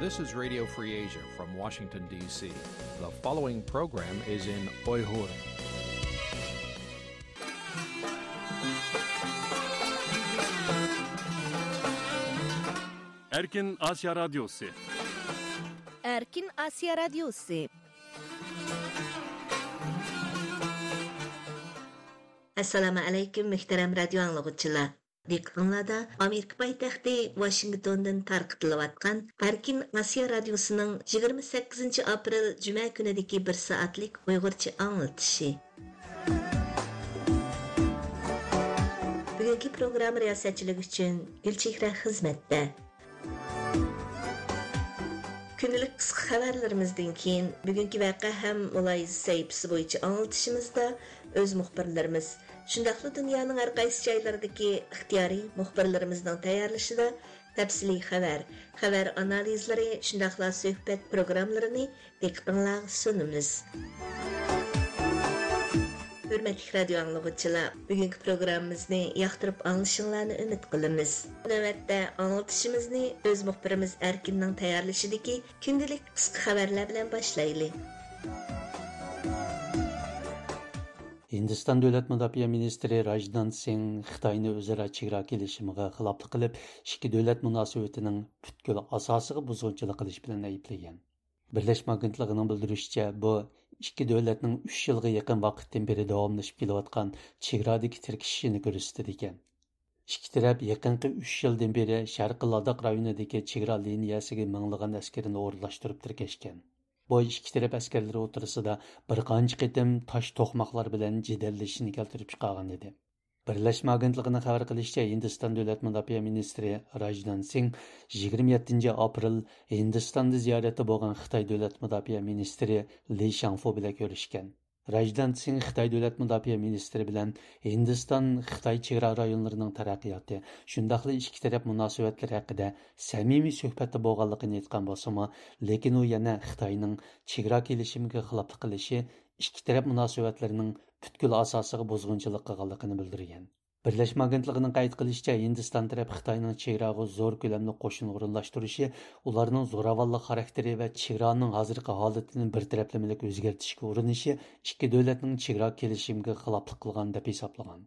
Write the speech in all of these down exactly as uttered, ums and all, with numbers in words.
This is Radio Free Asia from Washington, D C. The following program is in Uyghur. Erkin Asya Radyosu. Erkin Asya Radyosu. Assalomu alaykum, muhtaram radio anglaguchilar. دىققىتىڭلاردا ئامېرىكا پايتەختى ۋاشىنگتوندىن تارقىتىلىۋاتقان ئەركىن ئاسىيا رادىيوسىنىڭ يىگىرمە سەككىزىنچى ئاپرېل جۈمە كۈنىدىكى بىر سائەتلىك ئۇيغۇرچە ئاڭلىتىشى. بۈگۈنكى پروگرامما رىياسەتچىلىكى ئۈچۈن گۈلچېھرە خىزمەتتە. كۈندىلىك قىسقا خەۋەرلىرىمىزدىن كېيىن، بۈگۈنكى ۋەقە ھەم مۇلاھىزە سەھىپىسى بويىچە ئاڭلىتىشىمىزدا ئۆز مۇخبىرلىرىمىز، شۇنداقلا دۇنيانىڭ ھەر قايسى جايلىرىدىكى ئىختىيارىي مۇخبىرلىرىمىزنىڭ تەييارلىشىدا تەپسىلىي خەۋەر، خەۋەر ئانالىزلىرى، شۇنداقلا سۆھبەت پروگراممىلىرىنى دىققىتىڭلارغا سۇنىمىز. ھۆرمەتلىك رادىيو ئاڭلىغۇچىلار، بۈگۈنكى پروگراممىمىزنى ياقتۇرۇپ ئاڭلىشىڭلارنى ئۈمىد قىلىمىز. نۆۋەتتە ئاڭلىتىشىمىزنى ئۆز مۇخبىرىمىز ئەركىننىڭ تەييارلىشىدىكى كۈندىلىك قىسقا خەۋەرلەر بىلەن باشلايلى. ھىندىستان دۆلەت مۇداپىئە مىنىستىرى راجدان سىڭ خىتاينى ئۆزئارا چېگرا كېلىشىمىغا خىلاپلىق قىلىپ، ئىككى دۆلەت مۇناسىۋىتىنىڭ پۈتكۈل ئاساسىغا بۇزغۇنچىلىق قىلىش بىلەن ئەيىبلىگەن. بىرلەشمە ئاگېنتلىقىنىڭ بىلدۈرۈشىچە، بۇ ئىككى دۆلەتنىڭ ئۈچ يىلغا يېقىن ۋاقىتتىن بېرى داۋاملىشىپ كېلىۋاتقان چېگرادىكى تىركىشىشىنى كۆرسىتىدىكەن. ئىككى تەرەپ يېقىنقى ئۈچ يىلدىن بېرى شەرقىي لاداخ رايونىدىكى چېگرا لىنىيەسىگە مىڭلىغان ئەسكىرىنى ئورۇنلاشتۇرۇپ تىركەشكەن. بۇ ئىككى تەرەپ ئەسكەرلىرى ئوتتۇرىسىدا بىر قانچە قېتىم تاش توقماقلار بىلەن جېدەللىشىشنى كەلتۈرۈپ چىقارغان ئىدى. بىرلەشمە ئاگېنتلىقىنىڭ خەۋەر قىلىشىچە، ھىندىستان دۆلەت مۇداپىئە مىنىستىرى راجدان سىڭ يىگىرمە يەتتىنچى ئاپرېل ھىندىستاندا زىيارەتتە بولغان خىتاي دۆلەت مۇداپىئە مىنىستىرى لى شاڭفۇ بىلەن كۆرۈشكەن. راجدان سىڭ خىتاي دۆلەت مۇداپىئە مىنىستىرى بىلەن ھىندىستان خىتاي چېگرا رايونلىرىنىڭ تەرەققىياتى، شۇنداقلا ئىككى تەرەپ مۇناسىۋەتلىرى ھەققىدە سەمىمىي سۆھبەتتە بولغانلىقىنى ئېيتقان بولسىمۇ، لېكىن ئۇ يەنە خىتاينىڭ چېگرا كېلىشىمىگە خىلاپلىق قىلىشى، ئىككى تەرەپ مۇناسىۋەتلىرىنىڭ پۈتكۈل ئاساسىغا بۇزغۇنچىلىق قىلغانلىقىنى بىلدۈرگەن. بىرلەشمە ئاگېنتلىقىنىڭ قەيت قىلىشىچە، ھىندىستان تەرەپ خىتاينىڭ چېگراغا زور كۆلەمدە قوشۇن ئورۇنلاشتۇرۇشى، ئۇلارنىڭ زوراۋانلىق خاراكتېرى ۋە چېگرانىڭ ھازىرقى ھالىتىنى بىر تەرەپلىمىلىك ئۆزگەرتىشكە ئۇرۇنۇشى ئىككى دۆلەتنىڭ چېگرا كېلىشىمىگە خىلاپلىق قىلغان دەپ ھېسابلىغان.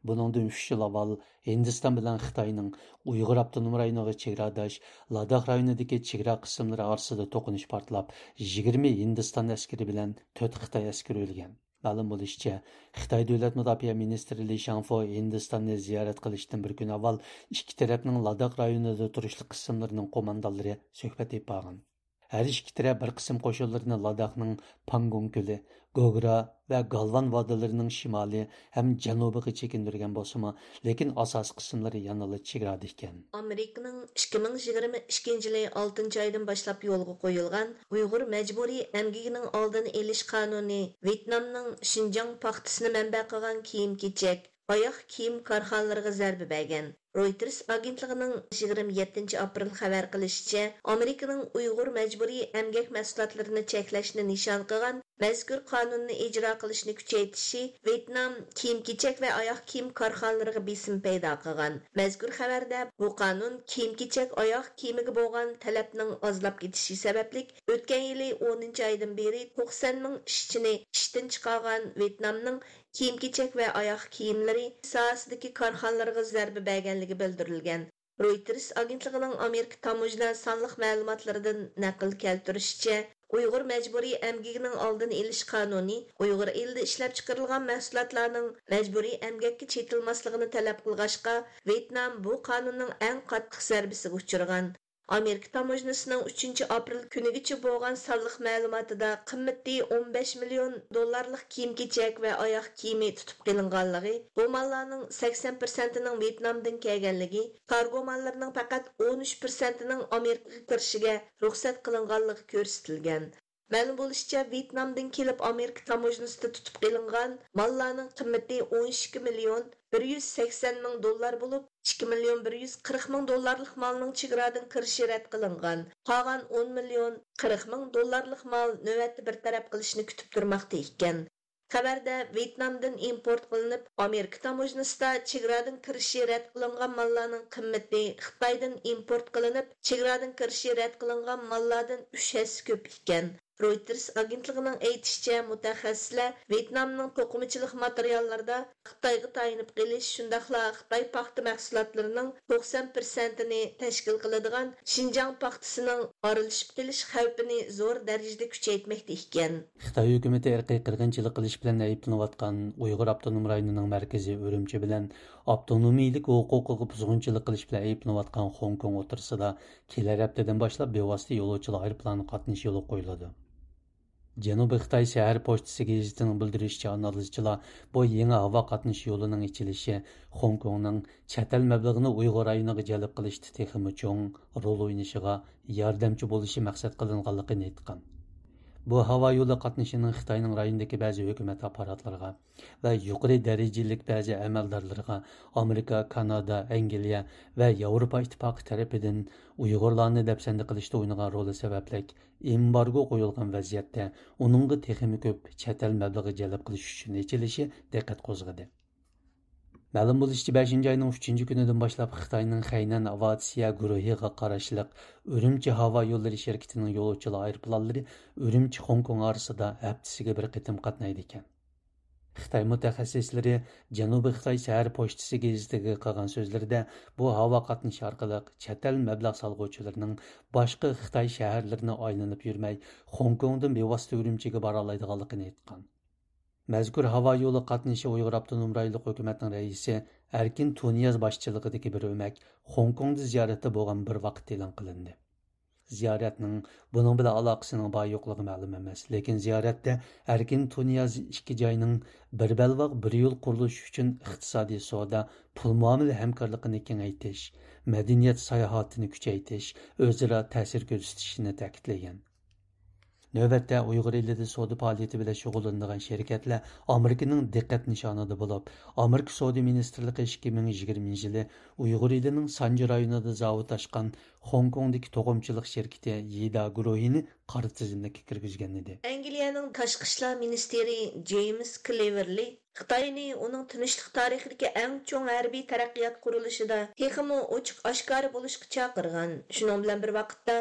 بۇنىڭدىن ئۈچ يىل ئاۋۋال ھىندىستان بىلەن خىتاينىڭ ئۇيغۇر ئاپتونوم رايونىغا چېگراداش لاداخ رايونىدىكى چېگرا قىسىملىرى ئارىسىدا توقۇنۇش پارتلاپ، يىگىرمە ھىندىستان ئەسكىرى بىلەن تۆت خىتاي ئەسكىرى ئۆلگەن. مەلۇم بولۇشىچە، خىتاي دۆلەت مۇداپىئە مىنىستىرى لى شاڭفۇ ھىندىستاننى زىيارەت قىلىشتىن بىر كۈن ئاۋۋال ئىككى تەرەپنىڭ لاداخ رايونىدا تۇرۇشلۇق قىسىملىرىنىڭ قوماندانلىرى سۆھبەت ئېلىپ بارغان. ھەر ئىككى تەرەپ بىر قىسىم قوشۇنلىرىنى لاداخنىڭ پاڭگونگ كۆلى، گوگرا ۋە گالۋان ۋادىلىرىنىڭ شىمالى ھەم جەنۇبىغا چېكىندۈرگەن بولسىمۇ، لېكىن ئاساسىي قىسىملىرى يەنىلا چېگرادا ئىكەن. ئامېرىكىنىڭ ئىككى مىڭ يىگىرمە ئىككىنچى يىلى ئالتىنچى ئايدىن باشلاپ يولغا قويۇلغان ئۇيغۇر مەجبۇرىي ئەمگىكىنىڭ ئالدىنى ئېلىش قانۇنى ۋيېتنامنىڭ شىنجاڭ پاختىسىنى مەنبە قىلغان كىيىم-كېچەك، ئاياغ كىيىم كارخانىلىرىغا زەربە بەرگەن. رويتېرس ئاگېنتلىقىنىڭ يىگىرمە يەتتىنچى ئاپرېل خەۋەر قىلىشىچە، ئامېرىكىنىڭ ئۇيغۇر مەجبۇرىي ئەمگەك مەھسۇلاتلىرىنى چەكلەشنى نىشان قىلغان مەزكۇر قانۇننى ئىجرا قىلىشنى كۈچەيتىشى ۋيېتنام كىيىم-كېچەك ۋە ئاياغ كىيىم كارخانىلىرىغا بېسىم پەيدا قىلغان. مەزكۇر خەۋەردە، بۇ قانۇن كىيىم-كېچەك، ئاياغ كىيىمىگە بولغان تەلەپنىڭ ئازلاپ كېتىشى سەۋەبلىك، ئۆتكەن يىلى ئونىنچى ئايدىن بېرى توقسەن مىڭ ئىشچىنى ئىشتىن چىقارغان ۋيېتنامنىڭ كىيىم-كېچەك ۋە ئاياغ كىيىملىرى ساھەسىدىكى كارخانىلىرىغا زەربە بەرگەنلىكى بىلدۈرۈلگەن. رويتېرس ئاگېنتلىقىنىڭ ئامېرىكا تاموژنا سانلىق مەلۇماتلىرىدىن نەقىل كەلتۈرۈشىچە، ئۇيغۇر مەجبۇرىي ئەمگىكىنىڭ ئالدىنى ئېلىش قانۇنى ئۇيغۇر ئېلىدە ئىشلەپچىقىرىلغان مەھسۇلاتلارنىڭ مەجبۇرىي ئەمگەككە چېتىلماسلىقىنى تەلەپ قىلغاچقا، ۋيېتنام بۇ قانۇننىڭ ئەڭ قاتتىق زەربىسىگە ئۇچرىغان. ئامېرىكا تاموژنىسىنىڭ ئۈچىنچى ئاپرېل كۈنىگىچە بولغان سانلىق مەلۇماتىدا قىممىتى ئون بەش مىليون دوللارلىق كىيىم-كېچەك ۋە ئاياغ كىيىمى تۇتۇپ قېلىنغانلىقى، بۇ ماللارنىڭ سەكسەن پىرسەنتىنىڭ ۋيېتنامدىن كەلگەنلىكى، كارگو ماللىرىنىڭ پەقەت ئون ئۈچ پىرسەنتىنىڭ ئامېرىكىغا كىرىشىگە رۇخسەت قىلىنغانلىقى كۆرسىتىلگەن. مەلۇم بولۇشىچە، ۋيېتنامدىن كېلىپ ئامېرىكا تاموژنىسىدا تۇتۇپ قېلىنغان ماللارنىڭ قىممىتى ئون ئىككى مىليون بىر يۈز سەكسەن مىڭ دوللار بولۇپ، ئىككى مىليون بىر يۈز قىرىق مىڭ دوللارلىق مالنىڭ چېگرادىن كىرىشى رەت قىلىنغان. قالغان ئون مىليون قىرىق مىڭ دوللارلىق مال نۆۋەتتە بىر تەرەپ قىلىشنى كۈتۈپ تۇرماقتا ئىكەن. خەۋەردە ۋيېتنامدىن ئىمپورت قىلىنىپ، ئامېرىكا تاموژنىسىدا چېگرادىن كىرىشى رەت قىلىنغان ماللارنىڭ قىممىتى خىتايدىن ئىمپورت قىلىنىپ، چېگرادىن كىرىشى رەت قىلىنغان ماللاردىن ئۈچ ھەسسە كۆپ ئىكەن. رويتېرس ئاگېنتلىقىنىڭ ئېيتىشىچە، مۇتەخەسسىسلەر ۋيېتنامنىڭ توقۇمىچىلىق ماتېرىياللىرىدا خىتايغا تايىنىپ قېلىش، شۇنداقلا خىتاي پاختا مەھسۇلاتلىرىنىڭ توقسان پىرسەنتىنى تەشكىل قىلىدىغان شىنجاڭ پاختىسىنىڭ ئارىلىشىپ قېلىش خەۋپىنى زور دەرىجىدە كۈچەيتمەكتە ئىكەن. خىتاي ھۆكۈمىتى ئىرقىي قىرغىنچىلىق قىلىش بىلەن ئەيىبلىنىۋاتقان ئۇيغۇر ئاپتونوم رايونىنىڭ مەركىزى ئۈرۈمچى بىلەن ئاپتونومىيلىك ھوقۇقىغا بۇزغۇنچىلىق قىلىش بىلەن ئەيىبلىنىۋاتقان خوڭكوڭ ئوتتۇرىسىدا كېلەر ھەپتىدىن باشلاپ بىۋاسىتە يولۇچىلار ئايروپىلانى قاتنىشى يولغا قويۇلىدۇ. جەنۇبىي خىتاي شەھەر پوچتىسى گېزىتىنىڭ بىلدۈرۈشىچە، ئانالىزچىلار بۇ يېڭى ھاۋا قاتنىشى يولىنىڭ ئېچىلىشى خوڭكوڭنىڭ چەت ئەل مەبلىغىنى ئۇيغۇر رايونىغا جەلپ قىلىشتا تېخىمۇ چوڭ رول ئوينىشىغا ياردەمچى بولۇشى مەقسەت قىلىنغانلىقىنى ئېيتقان. بۇ ھاۋا يولى قاتنىشىنىڭ خىتاينىڭ رايوندىكى بەزى ھۆكۈمەت ئاپپاراتلىرىغا ۋە يۇقىرى دەرىجىلىك بەزى ئەمەلدارلىرىغا ئامېرىكا، كانادا، ئەنگلىيە ۋە ياۋروپا ئىتتىپاقى تەرىپىدىن ئۇيغۇرلارنى دەپسەندە قىلىشتا ئوينىغان رولى سەۋەبلىك ئېمبارگو قويۇلغان ۋەزىيەتتە ئۇنىڭغا تېخىمۇ كۆپ چەت ئەل مەبلىغى جەلپ قىلىش ئۈچۈن ئېچىلىشى دىققەت قوزغىدى. مەلۇم بولۇشىچە، بەشىنچى ئاينىڭ ئۈچىنچى كۈنىدىن باشلاپ خىتاينىڭ خەينەن ئاۋىئاتسىيە گۇرۇھىغا قاراشلىق ئۈرۈمچى ھاۋا يوللىرى شىركىتىنىڭ يولۇچىلار ئايروپىلانلىرى ئۈرۈمچى خوڭكوڭ ئارىسىدا ھەپتىسىگە بىر قېتىم قاتنايدىكەن. خىتاي مۇتەخەسسىسلىرى جەنۇبىي خىتاي شەھەر پوچتىسى گېزىتىگە قىلغان سۆزلىرىدە، بۇ ھاۋا قاتنىشى ئارقىلىق چەت ئەل مەبلەغ سالغۇچىلىرىنىڭ باشقا خىتاي شەھەرلىرىنى ئايلىنىپ يۈرمەي، خوڭكوڭدىن بىۋاسىتە ئۈرۈمچىگە بارالايدىغانلىقىنى ئېيتقان. مەزكۇر ھاۋا يولى قاتنىشى ئۇيغۇر ئاپتونوم رايونلۇق ھۆكۈمەتنىڭ رەئىسى ئەركىن تۇنىياز باشچىلىقىدىكى بىر ئۆمەك خوڭكوڭدا زىيارەتتە بولغان بىر ۋاقىتتا ئېلان قىلىندى. زىيارەتنىڭ بۇنىڭ بىلەن ئالاقىسىنىڭ بار يوقلۇقى مەلۇم ئەمەس، لېكىن زىيارەتتە ئەركىن تۇنىياز ئىككى جاينىڭ بىر بەلباغ، بىر يول قۇرۇلۇشى ئۈچۈن ئىقتىسادىي، سودا، پۇل مۇئامىلە ھەمكارلىقىنى كېڭەيتىش، مەدەنىيەت ساياھىتىنى كۈچەيتىش، ئۆزئارا تەسىر كۆرسىتىشىنى تەكىتلىگەن. نۆۋەتتە ئۇيغۇر ئېلىدە سودا پائالىيىتى بىلەن شۇغۇللىنىدىغان شىركەتلەر ئامېرىكىنىڭ دىققەت نىشانىدا بولۇپ، ئامېرىكا سودا مىنىستىرلىقى ئىككى مىڭ يىگىرمىنچى يىلى ئۇيغۇر ئېلىنىڭ سانجى رايونىدا زاۋۇت ئاچقان خوڭكوڭدىكى توقۇمىچىلىق شىركىتى يىدا گۇرۇھىنى قارا تىزىملىككە كىرگۈزگەنىدى. ئەنگلىيەنىڭ تاشقى ئىشلار مىنىستىرى جېيمس كلېۋېرلى خىتاينى ئۇنىڭ تىنچلىق تارىخىدىكى ئەڭ چوڭ ھەربىي تەرەققىيات قۇرۇلۇشىدا تېخىمۇ ئوچۇق ئاشكارا بولۇشقا چاقىرغان. شۇنىڭ بىلەن بىر ۋاقىتتا،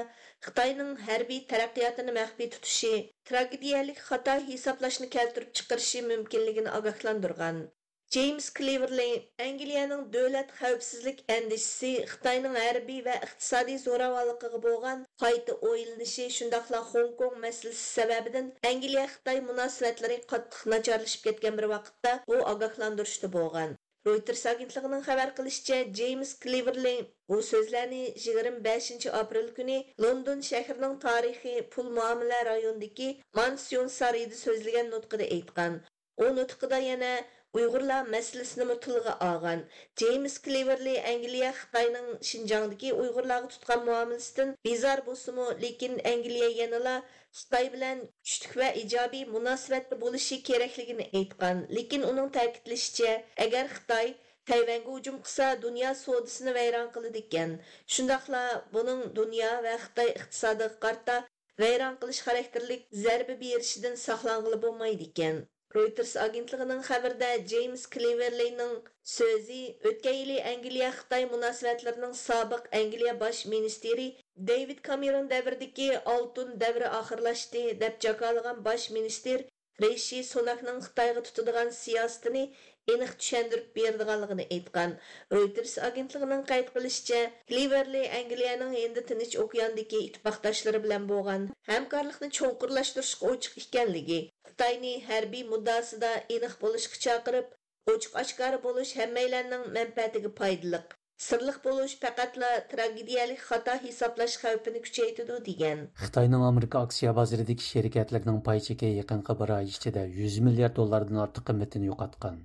خىتاينىڭ ھەربىي تەرەققىياتىنى مەخپىي تۇتۇشى تراگېدىيەلىك خاتا ھېسابلاشنى كەلتۈرۈپ چىقىرىشى مۇمكىنلىكىنى ئاگاھلاندۇرغان. جېيمس كلېۋېرلى ئەنگلىيەنىڭ دۆلەت خەۋپسىزلىك ئەندىشىسى خىتاينىڭ ھەربىي ۋە ئىقتىسادىي زوراۋانلىقىغا بولغان قايتا ئويلىنىشى، شۇنداقلا خوڭكوڭ مەسىلىسى سەۋەبىدىن ئەنگلىيە خىتاي مۇناسىۋەتلىرى قاتتىق ناچارلىشىپ كەتكەن بىر ۋاقىتتا بۇ ئاگاھلاندۇرۇشتا بولغان. رويتېرس ئاگېنتلىقىنىڭ خەۋەر قىلىشىچە، جېيمس كلېۋېرلى بۇ سۆزلەرنى يىگىرمە بەشىنچى ئاپرېل كۈنى لوندون شەھىرىنىڭ تارىخىي پۇل مۇئامىلە رايونىدىكى مانسيون سارىيىدا سۆزلىگەن نۇتقىدا ئېيتقان. ئۇ نۇتقىدا يەنە ئۇيغۇرلار مەسىلىسىنىمۇ تىلغا ئالغان. جېيمس كلېۋېرلى ئەنگلىيە خىتاينىڭ شىنجاڭدىكى ئۇيغۇرلارغا تۇتقان مۇئامىلىسىدىن بىزار بولسىمۇ، لېكىن ئەنگلىيە يەنىلا خىتاي بىلەن كۈچلۈك ۋە ئىجابىي مۇناسىۋەتتە بولۇشى كېرەكلىكىنى ئېيتقان. لېكىن ئۇنىڭ تەكىتلىشىچە، ئەگەر خىتاي تەيۋەنگە ھۇجۇم قىلسا، دۇنيا سودىسىنى ۋەيران قىلىدىكەن. شۇنداقلا بۇنىڭ دۇنيا ۋە خىتاي ئىقتىسادىغا قارىتا ۋەيران قىلىش خاراكتېرلىك زەربە بېرىشىدىن ساقلانغىلى بولمايدىكەن. رويتېرس ئاگېنتلىقىنىڭ خەۋىرىدە جېيمس كلېۋېرلىنىڭ سۆزى ئۆتكەن يىلى ئەنگلىيە خىتاي مۇناسىۋەتلىرىنىڭ سابىق ئەنگلىيە باش مىنىستىرى دېۋىد كامېرون دەۋرىدىكى ئالتۇن دەۋرى ئاخىرلاشتى، دەپ جاكارلىغان باش مىنىستىر رىشى سۇناكنىڭ خىتايغا تۇتىدىغان سىياسىتىنى ئېنىق چۈشەندۈرۈپ بېرىدىغانلىقىنى ئېيتقان. رويتېرس ئاگېنتلىقىنىڭ قەيت قىلىشىچە، كلېۋېرلى ئەنگلىيەنىڭ ھىندى تىنچ ئوكياندىكى ئىتتىپاقداشلىرى بىلەن بولغان ھەمكارلىقنى چوڭقۇرلاشتۇرۇشقا ئوچۇق ئىكەنلىكى، خىتاينى ھەربىي مۇددىئاسىدا ئېنىق بولۇشقا چاقىرىپ، ئوچۇق ئاشكارا بولۇش ھەممەيلەننىڭ مەنپەئەتىگە پايدىلىق. سىرلىق بولۇش پەقەتلا تراگېدىيەلىك خاتا ھېسابلاش خەۋپىنى كۈچەيتىدۇ، دېگەن. خىتاينىڭ ئامېرىكا ئاكسىيە بازىرىدىكى شىركەتلىرىنىڭ پاي چېكى يېقىنقى بىر ئاي ئىچىدە يۈز مىليارد دوللاردىن ئارتۇق قىممىتىنى يوقاتقان.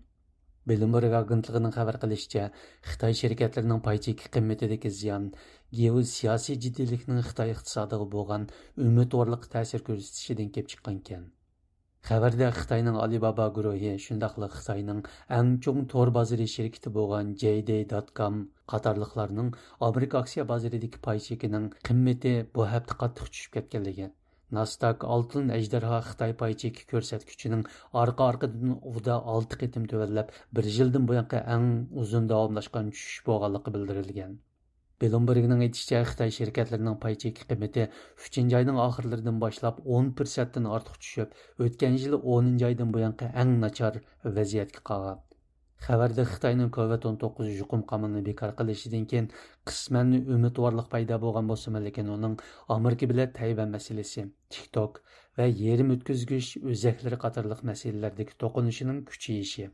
بلومبېرگ ئاگېنتلىقىنىڭ خەۋەر قىلىشىچە، خىتاي شىركەتلىرىنىڭ پاي چېكى قىممىتىدىكى زىيان گېئوسىياسىي جىددىيلىكنىڭ خىتاي ئىقتىسادىغا بولغان ئۈمىدۋارلىققا تەسىر كۆرسىتىشىدىن كېلىپ چىققانىكەن. خەۋەردە خىتاينىڭ ئالىبابا گۇرۇھى، شۇنداقلا خىتاينىڭ ئەڭ چوڭ تور بازىرى شىركىتى بولغان جەيدەي دات كام قاتارلىقلارنىڭ ئامېرىكا ئاكسىيە بازىرىدىكى پاي چېكىنىڭ قىممىتى بۇ ھەپتە قاتتىق چۈشۈپ كەتكەنلىكى، ناسداك ئالتۇن ئەجدىھا خىتاي پاي چېكى كۆرسەتكۈچىنىڭ ئارقا-ئارقىدىن ئۇدا ئالتە قېتىم تۆۋەنلەپ، بىر يىلدىن بۇيانقى ئەڭ ئۇزۇن داۋاملاشقان چۈشۈش بولغانلىقى بىلدۈرۈلگەن. بلومبېرگنىڭ ئېيتىشىچە، خىتاي شىركەتلىرىنىڭ پاي چېكى قىممىتى ئۈچىنچى ئاينىڭ ئاخىرلىرىدىن باشلاپ ئون پىرسەنتتىن ئارتۇق چۈشۈپ، ئۆتكەن يىلى ئونىنچى ئايدىن بۇيانقى ئەڭ ناچار ۋەزىيەتكە قالغان. خەۋەردە خىتاينىڭ كوۋىد ئون توققۇز يۇقۇم قامىلىنى بىكار قىلىشىدىن كېيىن قىسمەن ئۈمىدۋارلىق پەيدا بولغان بولسىمۇ، لېكىن ئۇنىڭ ئامېرىكا بىلەن تەيۋەن مەسىلىسى، تىك توك ۋە يېرىم ئۆتكۈزگۈچ ئۆزەكلىرى قاتارلىق مەسىلىلەردىكى توقۇنۇشىنىڭ كۈچىيىشى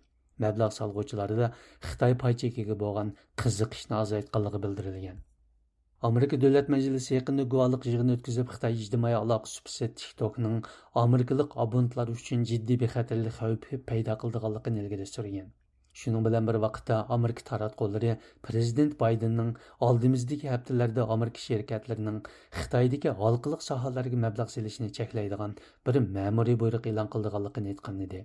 مەبلەغ سالغۇچىلاردا خىتاي پاي چېكىگە بولغان قىزىقىشنى ئازايتقانلىقى بىلدۈرۈلگەن. ئامېرىكا دۆلەت مەجلىسى يېقىندا گۇۋاھلىق يىغىنى ئۆتكۈزۈپ، خىتاي ئىجتىمائىي ئالاقە سۇپىسى تىك توكنىڭ ئامېرىكىلىق ئابونېنتلار ئۈچۈن جىددىي بىخەتەرلىك خەۋپى پەيدا قىلىدىغانلىقىنى ئىلگىرى سۈرگەن. شۇنىڭ بىلەن بىر ۋاقىتتا، ئامېرىكا تاراتقۇلىرى پىرېزىدېنت بايدېننىڭ ئالدىمىزدىكى ھەپتىلەردە ئامېرىكا شىركەتلىرىنىڭ خىتايدىكى ھالقىلىق ساھەلەرگە مەبلەغ سېلىشىنى چەكلەيدىغان بىر مەمۇرىي بۇيرۇق ئېلان قىلىدىغانلىقىنى ئېيتقان ئىدى.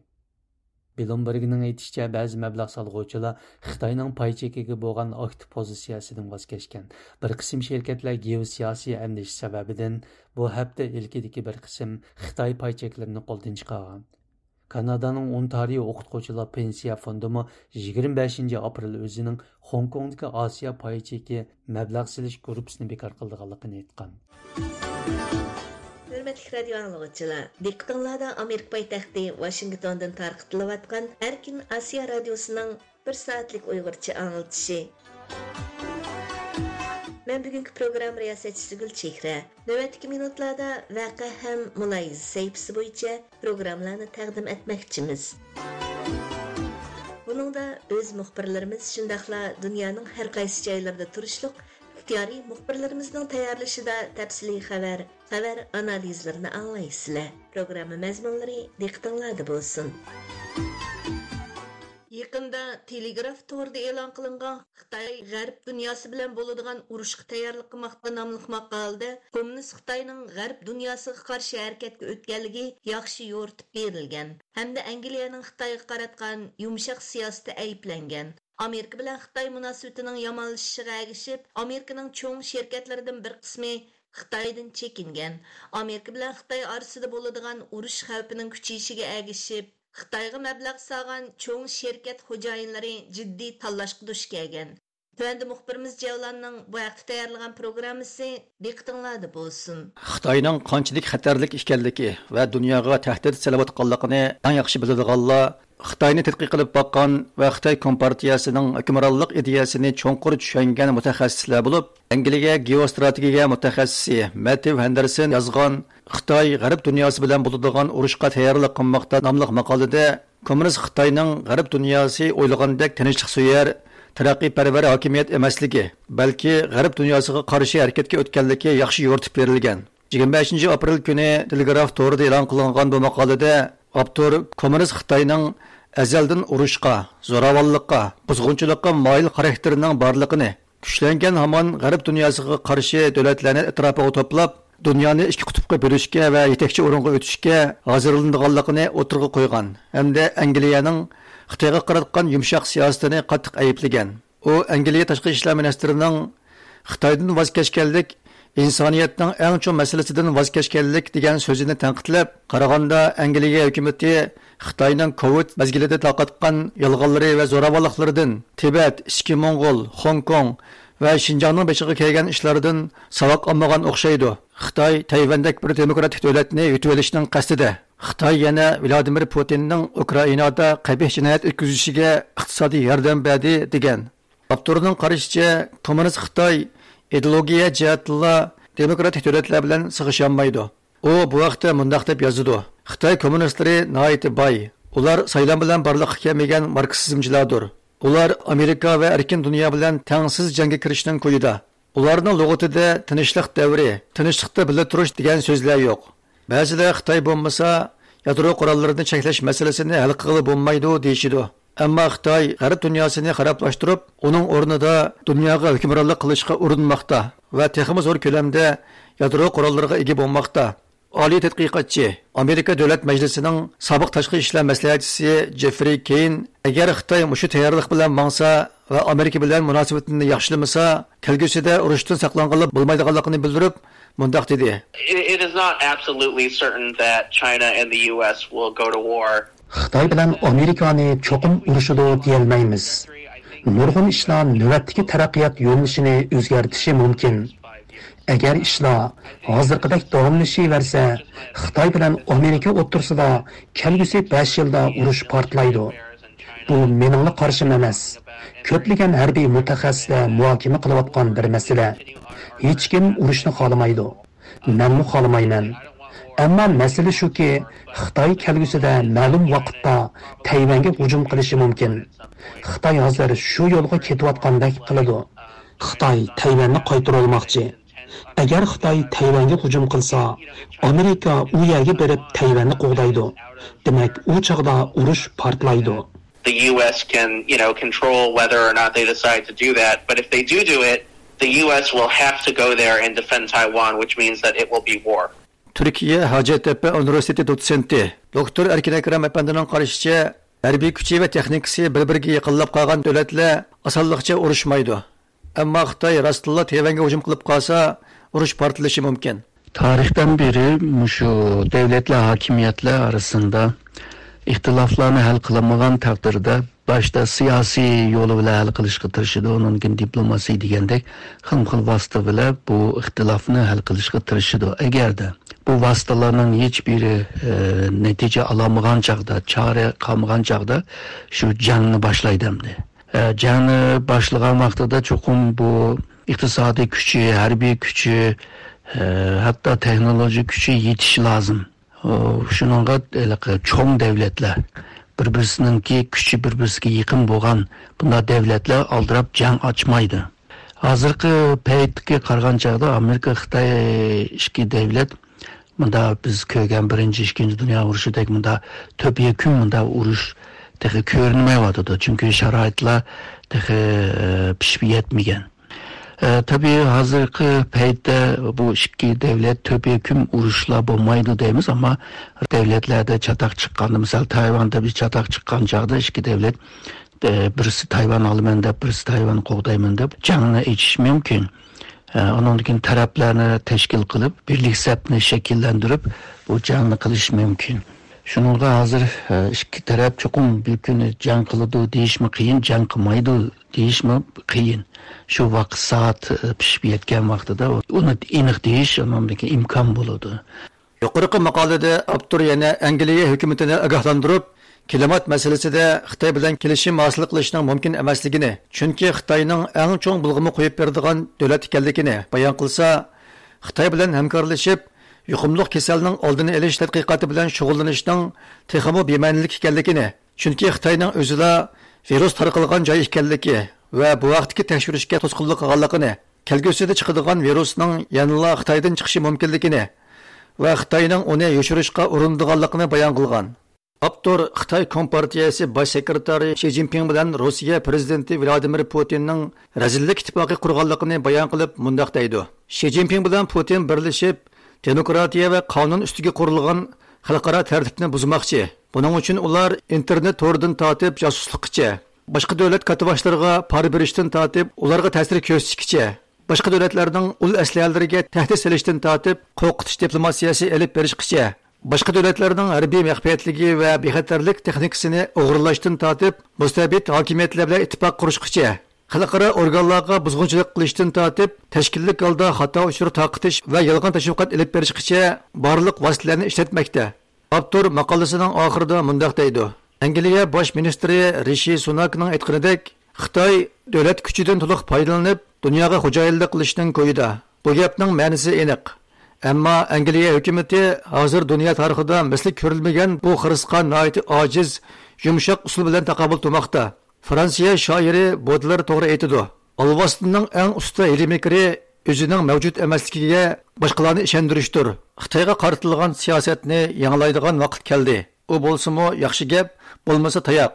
بلومبېرگنىڭ ئېيتىشىچە، بەزى مەبلەغ سالغۇچىلار خىتاينىڭ پاي چېكىگە بولغان ئاكتىپ پوزىتسىيەسىدىن ۋاز كەچكەن. بىر قىسىم شىركەتلەر گېئوسىياسىي ئەندىشە سەۋەبىدىن بۇ ھەپتە ئىلكىدىكى بىر قىسىم خىتاي پاي چەكلىرىنى قولدىن چىقارغان. كانادانىڭ ئونتارىيو ئوقۇتقۇچىلار پېنسىيە فوندىمۇ يىگىرمە بەشىنچى ئاپرېل ئۆزىنىڭ خوڭكوڭدىكى ئاسىيا پاي چېكى مەبلەغ سېلىش گۇرۇپپىسىنى بىكار قىلىدىغانلىقىنى ئېيتقان. ھۆرمەتلىك رادىيو ئاڭلىغۇچىلار، دىققىتىڭلاردا ئامېرىكا پايتەختى ۋاشىنگتوندىن تارقىتىلىۋاتقان ئەركىن ئاسىيا رادىيوسىنىڭ بىر سائەتلىك ئۇيغۇرچە ئاڭلىتىشى. مەن بۈگۈنكى پروگرامما رىياسەتچىسى گۈلچېھرە. نۆۋەتتىكى مىنۇتلاردا ۋەقە ھەم مۇلاھىزە سەھىپىسى بويىچە پروگراممىلارنى تەقدىم ئەتمەكچىمىز. بۇنىڭدا ئۆز مۇخبىرلىرىمىز، شۇنداقلا دۇنيانىڭ ھەر قايسى جايلىرىدا تۇرۇشلۇق ئىختىيارىي مۇخبىرلىرىمىزنىڭ تەييارلىشىدا تەپسىلىي خەۋەر، خەۋەر ئانالىزلىرىنى ئاڭلايسىلەر. پروگرامما مەزمۇنلىرى دىققىتىڭلاردا بولسۇن. يېقىندا تېلېگراف تورىدا ئېلان قىلىنغان خىتاي غەرب دۇنياسى بىلەن بولىدىغان ئۇرۇشقا تەييارلىق قىلماقتا ناملىق ماقالىدە، كوممۇنىست خىتاينىڭ غەرب دۇنياسىغا قارشى ھەرىكەتكە ئۆتكەنلىكى ياخشى يورۇتۇپ بېرىلگەن ھەمدە ئەنگلىيەنىڭ خىتايغا قاراتقان يۇمشاق سىياسىتى ئەيىبلەنگەن. ئامېرىكا بىلەن خىتاي مۇناسىۋىتىنىڭ يامانلىشىشىغا ئەگىشىپ، ئامېرىكىنىڭ چوڭ شىركەتلىرىدىن بىر قىسمى خىتايدىن چېكىنگەن. ئامېرىكا بىلەن خىتاي ئارىسىدا بولىدىغان ئۇرۇش خەۋپىنىڭ كۈچىيىشىگە ئەگىشىپ، خىتايغا مەبلەغ سالغان چوڭ شىركەت خوجايىنلىرى جىددىي تاللاشقا دۇچ كەلگەن. تۆۋەندە مۇخبىرىمىز جەۋلاننىڭ بۇ ھەقتە تەييارلىغان پروگراممىسى دىققىتىڭلاردا بولسۇن. خىتاينىڭ قانچىلىك خەتەرلىك ئىكەنلىكى ۋە دۇنياغا تەھدىت سېلىۋاتقانلىقىنى ئەڭ ياخشى بىلىدىغانلار خىتاينى تەتقىق قىلىپ باققان ۋە خىتاي كومپارتىيەسىنىڭ ھۆكۈمرانلىق ئىدىيەسىنى چوڭقۇر چۈشەنگەن مۇتەخەسسىسلەر بولۇپ، ئەنگلىيە گېئوستراتېگىيە مۇتەخەسسىسى مەتتېۋ ھەندېرسون يازغان خىتاي غەرب دۇنياسى بىلەن بولىدىغان ئۇرۇشقا تەييارلىق قىلماقتا ناملىق ماقالىدە، كوممۇنىست خىتاينىڭ غەرب دۇنياسى ئويلىغاندەك تىنچلىقسۆيەر، تەرەققىيپەرۋەر ھاكىمىيەت ئەمەسلىكى، بەلكى غەرب دۇنياسىغا قارشى ھەرىكەتكە ئۆتكەنلىكى ياخشى يورۇتۇپ بېرىلگەن. يىگىرمە بەشىنچى ئاپرېل كۈنى تېلېگراف تورىدا ئېلان قىلىنغان بۇ ماقالىدە ئاپتور كوممۇنىست خىتاينىڭ ئەزەلدىن ئۇرۇشقا، زوراۋانلىققا، بۇزغۇنچىلىققا مايىل خاراكتېرىنىڭ بارلىقىنى، كۈچلەنگەن ھامان غەرب دۇنياسىغا قارشى دۆلەتلەرنى ئەتراپىغا توپلاپ، دۇنيانى ئىككى قۇتۇپقا بۆلۈشكە ۋە يېتەكچى ئورۇنغا ئۆتۈشكە ھازىرلىنىدىغانلىقىنى ئوتتۇرىغا قويغان ھەمدە ئەنگلىيەنىڭ خىتايغا قاراتقان يۇمشاق سىياسىتىنى قاتتىق ئەيىبلىگەن. ئۇ ئەنگلىيە تاشقى ئىشلار مىنىستىرىنىڭ خىتايدىن ۋاز كەچكەنلىك ئىنسانىيەتنىڭ ئەڭ چوڭ مەسىلىسىدىن ۋاز كەچكەنلىك دېگەن سۆزىنى تەنقىدلەپ، قارىغاندا ئەنگلىيە ھۆكۈمىتى خىتاينىڭ كوۋىد مەزگىلىدە تارقاتقان يالغانلىرى ۋە زوراۋانلىقلىرىدىن، تىبەت، ئىچكى موڭغۇل، خوڭكوڭ ۋە شىنجاڭنىڭ بېشىغا كەلگەن ئىشلاردىن ساۋاق ئالمىغان ئوخشايدۇ. خىتاي تەيۋەندەك بىر دېموكراتىك دۆلەتنى يۇتۇۋېلىشنىڭ قەستىدە. خىتاي يەنە ۋلادىمىر پۇتىننىڭ ئۇكرائىنادا قەبىھ جىنايەت ئۆتكۈزۈشىگە ئىقتىسادىي ياردەم بەردى، دېگەن. ئاپتورنىڭ قارىشىچە، كوممۇنىست خىتاي ئىدېئولوگىيە جەھەتتىنلا دېموكراتىك دۆلەتلەر بىلەن سىغىشالمايدۇ. ئۇ بۇ ھەقتە مۇنداق دەپ يازىدۇ: خىتاي كوممۇنىستلىرى ناھايىتى باي. ئۇلار سايلام بىلەن بارلىققا كەلمىگەن ماركسىزمچىلاردۇر. ئۇلار ئامېرىكا ۋە ئەركىن دۇنيا بىلەن تەڭسىز جەڭگە كىرىشنىڭ كويىدا. ئۇلارنىڭ لۇغىتىدە تىنچلىق دەۋرى، تىنچلىقتا بىللە تۇرۇش دېگەن سۆزلەر يوق. بەزىلەر خىتاي بولمىسا، يادرو قوراللىرىنى چەكلەش مەسىلىسىنى ھەل قىلغىلى بولمايدۇ، دېيىشىدۇ. ئەمما خىتاي غەرب دۇنياسىنى خارابلاشتۇرۇپ، ئۇنىڭ ئورنىدا دۇنياغا ھۆكۈمرانلىق قىلىشقا ئۇرۇنماقتا ۋە تېخىمۇ زور كۆلەمدە يادرو قوراللىرىغا ئىگە بولماقتا. ئالىي تەتقىقاتچى، ئامېرىكا دۆلەت مەجلىسىنىڭ سابىق تاشقى ئىشلار مەسلىھەتچىسى جېفرىي كېين، ئەگەر خىتاي مۇشۇ تەييارلىق بىلەن ماڭسا ۋە ئامېرىكا بىلەن مۇناسىۋىتىنى ياخشىلىمىسا، كەلگۈسىدە ئۇرۇشتىن ساقلانغىلى بولمايدىغانلىقىنى بىلدۈرۈپ، مۇنداق دېدى. It, it is not absolutely certain that China and the U S will go to war. خىتاي بىلەن ئامېرىكانى چوقۇم ئۇرۇشىدۇ دېيەلمەيمىز. نۇرغۇن ئىشلار نۆۋەتتىكى تەرەققىيات يۆنىلىشىنى ئۆزگەرتىشى مۇمكىن. ئەگەر ئىشلار ھازىرقىدەك داۋاملىشىۋەرسە، خىتاي بىلەن ئامېرىكا ئوتتۇرىسىدا كەلگۈسى بەش يىلدا ئۇرۇش پارتلايدۇ. بۇ مېنىڭلا قارىشىم ئەمەس. كۆپلىگەن ھەربىي مۇتەخەسسىسلەر مۇھاكىمە قىلىۋاتقان بىر مەسىلە. ھېچكىم ئۇرۇشنى خالىمايدۇ. مەنمۇ خالىمايمەن. ئەمما مەسىلە شۇكى، خىتاي كەلگۈسىدە مەلۇم ۋاقىتتا تەيۋەنگە ھۇجۇم قىلىشى مۇمكىن. خىتاي ھازىر شۇ يولغا كېتىۋاتقاندەك قىلىدۇ. خىتاي تەيۋەننى قايتۇرۇۋالماقچى. ئەگەر خىتاي تەيۋەنگە ھۇجۇم قىلسا، ئامېرىكا ئۇ يەرگە بېرىپ تەيۋەننى قوغدايدۇ. دېمەك، ئۇ چاغدا ئۇرۇش پارتلايدۇ. The U S can, you know, control whether or not they decide to do that. But if they do do it, the U S will have to go there and defend Taiwan, which means that it will be war. تۈركىيە ھاجەتتەپە ئۇنىۋېرسىتېتى دوتسېنتى دوكتور ئەركىن ئەكرەم ئەپەندىنىڭ قارىشىچە، ھەربىي كۈچى ۋە تېخنىكىسى بىر-بىرىگە يېقىنلاپ قالغان دۆلەتلەر ئاسانلىقچە ئۇرۇشمايدۇ. ئەمما خىتاي راستتىنلا تەيۋەنگە ھۇجۇم قىلىپ قالسا، ئۇرۇش پارتلىشى مۇمكىن. تارىختىن بېرى مۇشۇ دۆلەتلەر، ھاكىمىيەتلەر ئارىسىندا ئىختىلاپلارنى ھەل قىلالمىغان تەقدىردە، باشتا سىياسىي يولى بىلەن ھەل قىلىشقا تىرىشىدۇ، ئۇنىڭدىن كېيىن دىپلوماسىيە دېگەندەك خىلمۇ خىل ۋاسىتە بىلەن بۇ ئىختىلاپنى ھەل قىلىشقا تىرىشىدۇ. ئەگەردە بۇ ۋاسىتىلەرنىڭ ھېچ بىرى، ئە، نەتىجە ئالالمىغان چاغدا، چارە قالمىغان چاغدا شۇ جەڭنى باشلايدۇ ئەمدى. ئە، جەڭنى باشلىغان ۋاقتىدا چوقۇم بۇ ئىقتىسادىي كۈچى، ھەربىي كۈچى، ئە، ھەتتا تېخنولوگىيە كۈچى يېتىشى لازىم. ئۇ، شۇنىڭغا ھېلىقى چوڭ دەۋلەتلەر، بىر-بىرسىنىڭكى كۈچى بىر-بىرسىگە يېقىن بولغان بۇنداق دەۋلەتلەر ئالدىراپ جەڭ ئاچمايدۇ. ھازىرقى پەيتكە قارىغان چاغدا ئامېرىكا، خىتاي ئىككى دەۋلەت مۇندا بىز كۆرگەن بىرىنچى، ئىككىنچى دۇنيا ئۇرۇشىدەك مۇندا تۆپە يەكۈن مۇندا ئۇرۇش تېخى كۆرۈنمەيۋاتىدۇ. چۈنكى شارائىتلار تېخى، ئە، پىشىپ يەتمىگەن. ئە، تەبىئىي، ھازىرقى پەيتتە بۇ ئىككى دەۋلەت تۆپە يەكۈن ئۇرۇشلار بولمايدۇ دەيمىز، ئەمما دەۋلەتلەردە چاتاق چىققاندا، مىسال، تايۋاندا بىر چاتاق چىققان چاغدا ئىككى دەۋلەت، ئە، بىرسى تايۋان ئالىمەن دەپ، بىرسى تايۋان قوغدايمەن دەپ جەڭنى ئېچىشى مۇمكىن. ئە، ئۇنىڭدىن كېيىن تەرەپلەرنى تەشكىل قىلىپ، بىرلىك سەپنى شەكىللەندۈرۈپ، بۇ جەڭنى قىلىشى مۇمكىن. شۇنىڭغا ھازىر، ئە، ئىككى تەرەپ چوقۇم بىر كۈنى جەڭ قىلىدۇ دېيىشمۇ قىيىن، جەڭ قىلمايدۇ دېيىشمۇ قىيىن. شۇ ۋاقىت سائەت، ئە، پىشىپ يەتكەن ۋاقتىدا ئۇنى ئېنىق دېيىش ئۇنىڭدىكى ئىمكان بولىدۇ. يۇقىرىقى ماقالىدە ئاپتور يەنە ئەنگلىيە ھۆكۈمىتىنى ئاگاھلاندۇرۇپ، كىلىمات مەسىلىسىدە خىتاي بىلەن كېلىشىم ھاسىل قىلىشنىڭ مۇمكىن ئەمەسلىكىنى، چۈنكى خىتاينىڭ ئەڭ چوڭ بۇلغىما قويۇپ بېرىدىغان دۆلەت ئىكەنلىكىنى بايان قىلسا، خىتاي بىلەن ھەمكارلىشىپ، يۇقۇملۇق كېسەلنىڭ ئالدىنى ئېلىش تەتقىقاتى بىلەن شۇغۇللىنىشنىڭ تېخىمۇ بىمەنىلىك ئىكەنلىكىنى، چۈنكى خىتاينىڭ ئۆزىلا ۋىرۇس تارقالغان جاي ئىكەنلىكى ۋە بۇ ھەقتىكى تەكشۈرۈشكە توسقۇنلۇق قىلغانلىقىنى، كەلگۈسىدە چىقىدىغان ۋىرۇسنىڭ يەنىلا خىتايدىن چىقىشى مۇمكىنلىكىنى ۋە خىتاينىڭ ئۇنى يوشۇرۇشقا ئۇرۇنىدىغانلىقىنى بايان قىلغان. ئاپتور خىتاي كومپارتىيەسى باش سېكرېتارى شى جىنپىڭ بىلەن روسىيە پىرېزىدېنتى ۋلادىمىر پۇتىننىڭ رەزىللىك ئىتتىپاقى قۇرغانلىقىنى بايان قىلىپ مۇنداق دەيدۇ: شى جىنپىڭ بىلەن پۇتىن بىرلىشىپ، دېموكراتىيە ۋە قانۇن ئۈستىگە قۇرۇلغان خەلقئارا تەرتىپنى بۇزماقچى. بۇنىڭ ئۈچۈن ئۇلار ئىنتېرنېت تورىدىن تارتىپ جاسۇسلۇققىچە، باشقا دۆلەت كاتتىباشلىرىغا پارا بېرىشتىن تارتىپ ئۇلارغا تەسىر كۆرسىتىشكىچە، باشقا دۆلەتلەرنىڭ ئۇل ئەسلىھەلىرىگە تەھدىت سېلىشتىن تارتىپ قورقۇتۇش دىپلوماتىيەسى ئېلىپ بېرىشقىچە، باشقا دۆلەتلەرنىڭ ھەربىي مەخپىيەتلىكى ۋە بىخەتەرلىك تېخنىكىسىنى ئوغرىلاشتىن تارتىپ مۇستەبىت ھاكىمىيەتلەر بىلەن ئىتتىپاق قۇرۇشقىچە، خەلقئارا ئورگانلارغا بۇزغۇنچىلىق قىلىشتىن تارتىپ تەشكىللىك ھالدا خاتا ئۇچۇر تارقىتىش ۋە يالغان تەشۋىقات ئېلىپ بېرىشقىچە بارلىق ۋاسىتىلەرنى ئىشلەتمەكتە. ئاپتور ماقالىسىنىڭ ئاخىرىدا مۇنداق دەيدۇ: ئەنگلىيە باش مىنىستىرى رىشى سۇناكنىڭ ئېيتقىنىدەك، خىتاي دۆلەت كۈچىدىن تولۇق پايدىلىنىپ، دۇنياغا خوجايىنلىق قىلىشنىڭ كويىدا. بۇ گەپنىڭ مەنىسى ئېنىق. ئەمما ئەنگلىيە ھۆكۈمىتى ھازىر دۇنيا تارىخىدا مىسلى كۆرۈلمىگەن بۇ خىرىسقا ناھايىتى ئاجىز، يۇمشاق ئۇسۇل بىلەن تاقابىل تۇرماقتا. فرانسىيە شائىرى بودلېر توغرا ئېيتىدۇ: ئالۋاستىنىڭ ئەڭ ئۇستا ھىيلە-مىكرى ئۆزىنىڭ مەۋجۇت ئەمەسلىكىگە باشقىلارنى ئىشەندۈرۈشتۇر. خىتايغا قارىتىلغان سىياسەتنى يېڭىلايدىغان ۋاقىت كەلدى. ئۇ بولسىمۇ ياخشى گەپ، بولمىسا تاياق.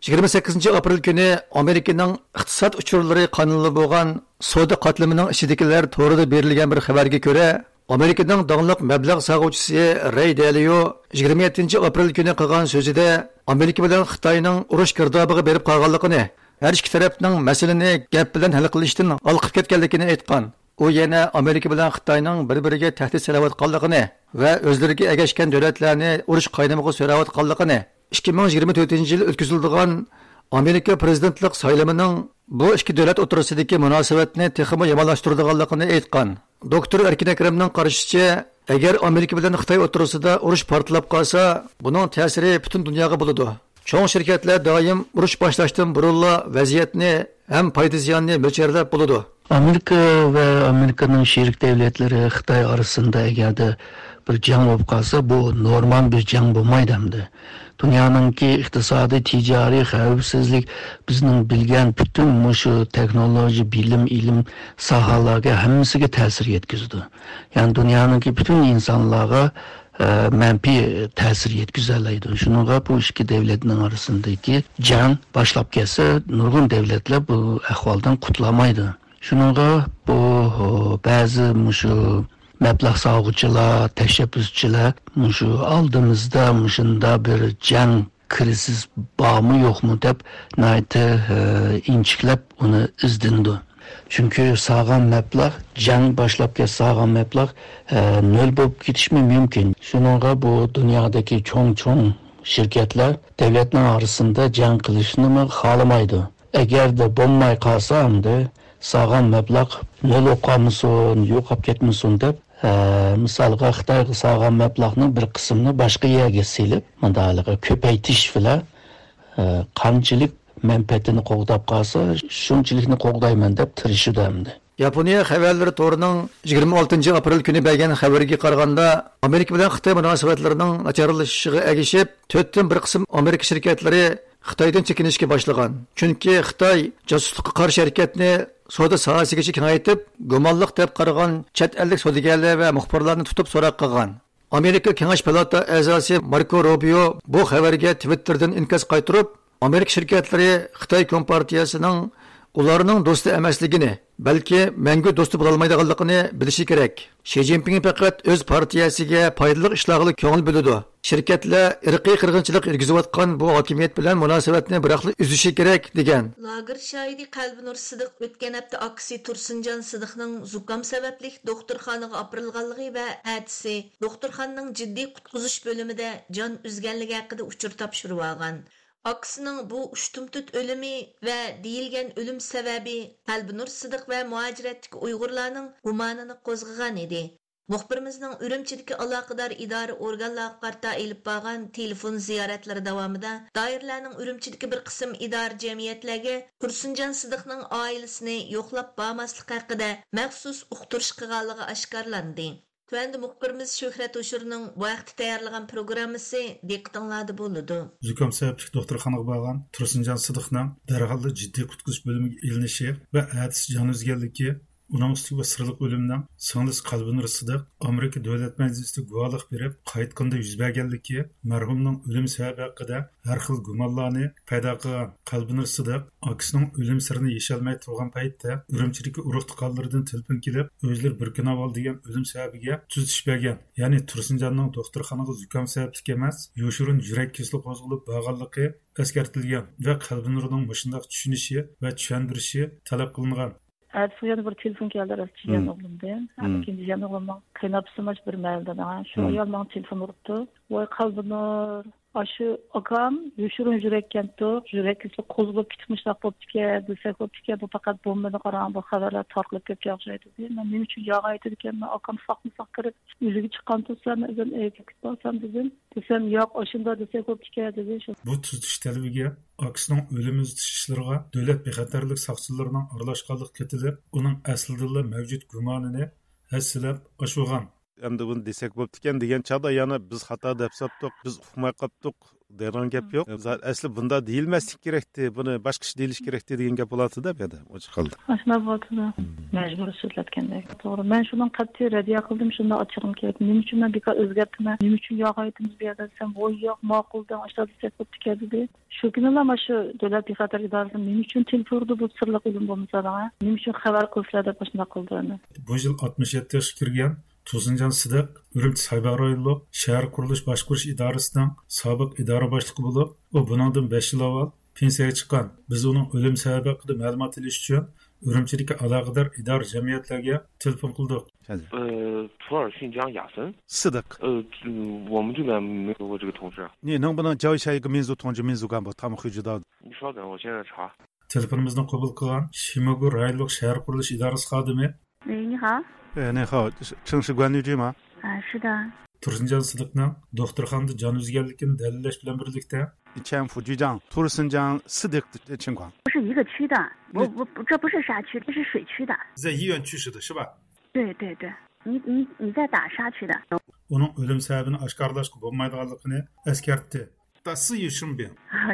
يىگىرمە سەككىزىنچى ئاپرېل كۈنى ئامېرىكىنىڭ ئىقتىساد ئۇچۇرلىرى قانىلى بولغان سودا قاتلىمىنىڭ ئىچىدىكىلەر تورىدا بېرىلگەن بىر خەۋەرگە كۆرە، ئامېرىكىنىڭ داڭلىق مەبلەغ سالغۇچىسى رەي دېلىيو يىگىرمە يەتتىنچى ئاپرېل كۈنى قىلغان سۆزىدە ئامېرىكا بىلەن خىتاينىڭ ئۇرۇش گىردابىغا بېرىپ قالغانلىقىنى، ھەر ئىككى تەرەپنىڭ مەسىلىنى گەپ بىلەن ھەل قىلىشتىن ھالقىپ كەتكەنلىكىنى ئېيتقان. ئۇ يەنە ئامېرىكا بىلەن خىتاينىڭ بىر-بىرىگە تەھدىت سېلىۋاتقانلىقىنى ۋە ئۆزلىرىگە ئەگەشكەن دۆلەتلەرنى ئۇرۇش قاينىمىغا سۆرەۋاتقانلىقىنى، ئىككى مىڭ يىگىرمە تۆتىنچى يىل ئۆتكۈزۈلىدىغان ئامېرىكا پىرېزىدېنتلىق سايلىمىنىڭ بۇ ئىككى دۆلەت ئوتتۇرىسىدىكى مۇناسىۋەتنى تېخىمۇ يامانلاشتۇرىدىغانلىقىنى ئېيتقان. دوكتور ئەركىن ئەكرەمنىڭ قارىشىچە، ئەگەر ئامېرىكا بىلەن خىتاي ئوتتۇرىسىدا ئۇرۇش پارتلاپ قالسا، بۇنىڭ تەسىرى پۈتۈن دۇنياغا بولىدۇ. چوڭ شىركەتلەر دائىم ئۇرۇش باشلاشتىن بۇرۇنلا ۋەزىيەتنى ھەم پايدا زىياننى مۆلچەرلەپ بولىدۇ. ئامېرىكا ۋە ئامېرىكىنىڭ شېرىك دۆلەتلىرى خىتاي ئارىسىدا ئەگەردە بىر جەڭ بولۇپ قالسا، بۇ نورمال بىر جەڭ بولمايدۇ ئەمدى. دۇنيانىڭكى ئىقتىسادىي، تىجارىي، خەۋپسىزلىك، بىزنىڭ بىلگەن پۈتۈن مۇشۇ تېخنولوگىيە، بىلىم، ئىلىم ساھەلەرگە ھەممىسىگە تەسىر يەتكۈزىدۇ. يەنى دۇنيانىڭكى پۈتۈن ئىنسانلارغا، ئە، مەنپىي تەسىر يەتكۈزەلەيدۇ. شۇنىڭغا بۇ ئىككى دۆلەتنىڭ ئارىسىدىكى جەڭ باشلاپ كەتسە، نۇرغۇن دۆلەتلەر بۇ ئەھۋالدىن قۇتۇلالمايدۇ. شۇنىڭغا بۇ، بەزى مۇشۇ مەبلەغ سالغۇچىلار، تەشەببۇسچىلار مۇشۇ ئالدىمىزدا مۇشۇنداق بىر جەڭ، كرىزىس بارمۇ يوقمۇ دەپ ناھايىتى، ئە، ئىنچىكىلەپ ئۇنى ئىزدىنىدۇ. چۈنكى سالغان مەبلەغ، جەڭ باشلاپ كەتسە سالغان مەبلەغ، ئە، نۆل بولۇپ كېتىشمۇ مۇمكىن. شۇنىڭغا بۇ دۇنيادىكى چوڭ-چوڭ شىركەتلەر دۆلەتنىڭ ئارىسىدا جەڭ قىلىشنىمۇ خالىمايدۇ. ئەگەردە بولماي قالسا، ئەمدى سالغان مەبلەغ نۆل بولۇپ قالمىسۇن، يوقاپ كەتمىسۇن دەپ، ئە، مىسالغا خىتايغا سالغان مەبلەغنىڭ بىر قىسمىنى باشقا يەرگە سېلىپ، مۇنداقلىقى كۆپەيتىش بىلەن، ئە، قانچىلىك مەنپەئەتىنى قوغداپ قالسا، شۇنچىلىكنى قوغدايمەن دەپ تىرىشىدۇ ئەمدى. ياپونىيە خەۋەرلىرى تورىنىڭ يىگىرمە ئالتىنچى ئاپرېل كۈنى بەرگەن خەۋىرىگە قارىغاندا، ئامېرىكا بىلەن خىتاي مۇناسىۋەتلىرىنىڭ ناچارلىشىشىغا ئەگىشىپ، تۆتتىن بىر قىسىم ئامېرىكا شىركەتلىرى خىتايدىن چېكىنىشكە باشلىغان. چۈنكى خىتاي جاسۇسلۇققا قارشى ھەرىكەتنى سودا ساھەسىگىچە كېڭەيتىپ، گۇمانلىق دەپ قارىغان چەت ئەللىك سودىگەرلەر ۋە مۇخبىرلارنى تۇتۇپ سوراق قىلغان. ئامېرىكا كېڭەش پالاتا ئەزاسى ماركو روبىيو بۇ خەۋەرگە تىۋىتتېردىن ئىنكاس قايتۇرۇپ، ئامېرىكا شىركەتلىرى خىتاي كومپارتىيەسىنىڭ ئۇلارنىڭ دوستى ئەمەسلىكىنى، بەلكى مەڭگۈ دوستى بولالمايدىغانلىقىنى بىلىشى كېرەك. شى جىنپىڭ پەقەت ئۆز پارتىيەسىگە پايدىلىق ئىشلارغىلا كۆڭۈل بۆلىدۇ. شىركەتلەر ئىرقىي قىرغىنچىلىق يۈرگۈزۈۋاتقان بۇ ھاكىمىيەت بىلەن مۇناسىۋەتنى بىراقلا ئۈزۈشى كېرەك، دېگەن. لاگېر شاھىتى قەلبىنۇر سىدىق ئۆتكەن ھەپتە ئاكىسى تۇرسۇنجان سىدىقنىڭ زۇكام سەۋەبلىك دوختۇرخانىغا ئاپىرىلغانلىقى ۋە ئەتىسى دوختۇرخانىنىڭ جىددىي قۇتقۇزۇش بۆلۈمىدە جان ئۈزگەنلىكى ھەققىدە ئۇچۇر تاپشۇرۇۋالغان. ئاكىسىنىڭ بۇ ئۇشتۇمتۇت ئۆلۈمى ۋە دېيىلگەن ئۆلۈم سەۋەبى قەلبىنۇر سىدىق ۋە مۇھاجىرەتتىكى ئۇيغۇرلارنىڭ گۇمانىنى قوزغىغان ئىدى. مۇخبىرىمىزنىڭ ئۈرۈمچىدىكى ئالاقىدار ئىدارە ئورگانلارغا قارىتا ئېلىپ بارغان تېلېفون زىيارەتلىرى داۋامىدا دائىرىلەرنىڭ ئۈرۈمچىدىكى بىر قىسىم ئىدارە جەمئىيەتلەرگە تۇرسۇنجان سىدىقنىڭ ئائىلىسىنى يوقلاپ بارماسلىق ھەققىدە مەخسۇس ئۇقتۇرۇش قىلغانلىقى ئاشكارىلاندى. تۆۋەندە مۇخبىرىمىز شۆھرەت ھوشۇرنىڭ بۇ ھەقتە تەييارلىغان پروگراممىسى دىققىتىڭلاردا بولىدۇ. زۇكام سەۋەبلىك دوختۇرخانىغا بارغان تۇرسۇنجان سىدىقنىڭ دەرھاللا جىددىي قۇتقۇزۇش بۆلۈمىگە ئېلىنىشى ۋە ئەتىسى جان ئۈزگەنلىكى، ئۇنىڭ ئۈستىگە بۇ سىرلىق ئۆلۈمنىڭ سىڭلىسى قەلبىنۇر سىدىق ئامېرىكا دۆلەت مەجلىسىدە گۇۋاھلىق بېرىپ قايتقىنىدا يۈز بەرگەنلىكى، مەرھۇمنىڭ ئۆلۈم سەۋەبى ھەققىدە ھەر خىل گۇمانلارنى پەيدا قىلغان قەلبىنۇر سىدىق ئاكىسىنىڭ ئۆلۈم سىرىنى يېشەلمەي تۇرغان پەيتتە ئۈرۈمچىدىكى ئۇرۇق-تۇغقانلىرىدىن تېلېفون كېلىپ، ئۆزلىرى بىر كۈن ئاۋۋال دېگەن ئۆلۈم سەۋەبىگە تۈزىتىش بەرگەن. يەنى تۇرسۇنجاننىڭ دوختۇرخانىغا زۇكام سەۋەبلىك ئەمەس، يوشۇرۇن يۈرەك كېسىلى قوزغىلىپ بارغانلىقى ئەسكەرتىلگەن ۋە قەلبىنۇرنىڭ مۇشۇنداق چۈشىنىشى ۋە چۈشەندۈرۈشى تەلەپ قىلىنغان. ئەتىسى يەنە بىر تېلېفون كەلدى، راست، جىيەن ئوغلۇمدىن. ھە، مم. ئىككىنچى جىيەن ئوغلۇمنىڭ قېيىنئاپىسىمۇ بىر مەھەللىدە. شۇ ئايال ماڭا تېلېفون ئۇرۇپتۇ. ۋاي، قەلبىنۇر، ئاشۇ ئاكام يوشۇرۇن يۈرەككەنتۇق، يۈرەك كېسىلى قوزغىلىپ كېتىپ مۇشۇنداق بوپتىكەن، دېسەك بوپتىكەن، بۇ پەقەت بومبىنى قاراڭ، بۇ خەۋەرلەر تارقىلىپ كەتكەن ئوخشايدۇ دېدى. مەن نېمە ئۈچۈن ياغا ئېيتىدىكەنمەن، ئاكام ساقمۇ ساق كىرىپ ئۆلۈگە چىققان تۇرسا، مەن ئۆزۈم ئېيتىپ كېتىپ بارسام دېدىم. دېسەم، ياق، ئاشۇنداق دېسەك بوپتىكەن دېدى. بۇ تۈزىتىش تەلىپىگە ئاكىسىنىڭ ئۆلۈم ئىزدىتىش ئىشلىرىغا دۆلەت بىخەتەرلىك ساقچىلىرىنىڭ ئارىلاشقانلىقى كېتىلىپ، ئۇنىڭ ئەسلىدىنلا مەۋجۇت گۇمانىنى ھەسسىلەپ ئاشۇرغان. ئەمدى بۇنى دېسەك بوپتىكەن دېگەن چاغدا يەنە بىز خاتا دەپ ساپتۇق، بىز ئۇقماي قاپتۇق دەيدىغان گەپ يوق. ئەسلى بۇنداق دېيىلمەسلىك كېرەكتى، بۇنى باشقىچە دېيىلىش كېرەكتى دېگەن گەپ بولاتتى-دە بۇ يەردە، ئوچۇق ھالدا. ئاشۇنداق بولاتتى-دە. مەجبۇرىي سۆزلەتكەندەك. توغرا، مەن شۇنىڭ قەتئىي رەددىيە قىلدىم، شۇنداق ئاچچىقىم كېلىپ. نېمە ئۈچۈن مەن بىكار ئۆزگەرتىمەن، نېمە ئۈچۈن ياغا ئېيتىمىز بۇ يەردە دېسەم، ۋوي ياق، ماقۇل دەڭ، ئاشۇنداق دېسەك بوپتىكەن دېدى. شۇ كۈنىلا مانا شۇ دۆلەت بىخەتەر ئىدارىسى نېمە ئۈچۈن تېلېفون ئۇردى، بۇ سىرلىق ئۆلۈم بولمىسا دەڭ، نېمە ئۈچۈن خەۋەر قىلسىلەر دەپ ئاشۇنداق قىلدى ئەمدى. بۇ يىل ئاتمىش يەتتە ياشقا كىرگەن تۇرسۇنجان سىدىق ئۈرۈمچى سايباغ رايونلۇق شەھەر قۇرۇلۇش باشقۇرۇش ئىدارىسىنىڭ سابىق ئىدارە باشلىقى بولۇپ، ئۇ بۇنىڭدىن بەش يىل ئاۋۋال پېنسىيەگە چىققان. بىز ئۇنىڭ ئۆلۈم سەۋەبى ھەققىدە مەلۇمات ئېلىش ئۈچۈن ئۈرۈمچىدىكى ئالاقىدار ئىدارە جەمئىيەتلەرگە تېلېفون قىلدۇق. 呃，普洱新疆雅森。 سىدىق. 呃，这，我们这边没有过这个同事。 نېنىڭ بۇنىڭ جاۋ شەيگە مىنزۇ تۇڭجى مىنزۇ گامبو تامۇ خۇجىدا. 你稍等，我现在查。 تېلېفونىمىزنى قوبۇل قىلغان شىموگۇ رايونلۇق شەھەر قۇرۇلۇش ئىدارىسى خادىمى. 喂，你好。 ئە، نېخاۋ، چېڭشى گۇەنلىجىما؟ 啊，是的。 تۇرسۇنجان سىدىقنىڭ دوختۇرخانىدا جان ئۈزگەنلىكىنى دەلىللەش بىلەن بىرلىكتە، چيەنفۇ جىجاڭ، تۇرسۇنجان سىدىق چىڭخۇاڭ. 不是一个区的，不，不，不，这不是沙区，这是水区的。 زە يىيۈەن چۈشىدە، شىبا. 对，对，对，你，你，你在打沙区的。 ئۇنىڭ ئۆلۈم سەۋەبىنى ئاشكارىلاشقا بولمايدىغانلىقىنى ئەسكەرتتى. 但是也顺便。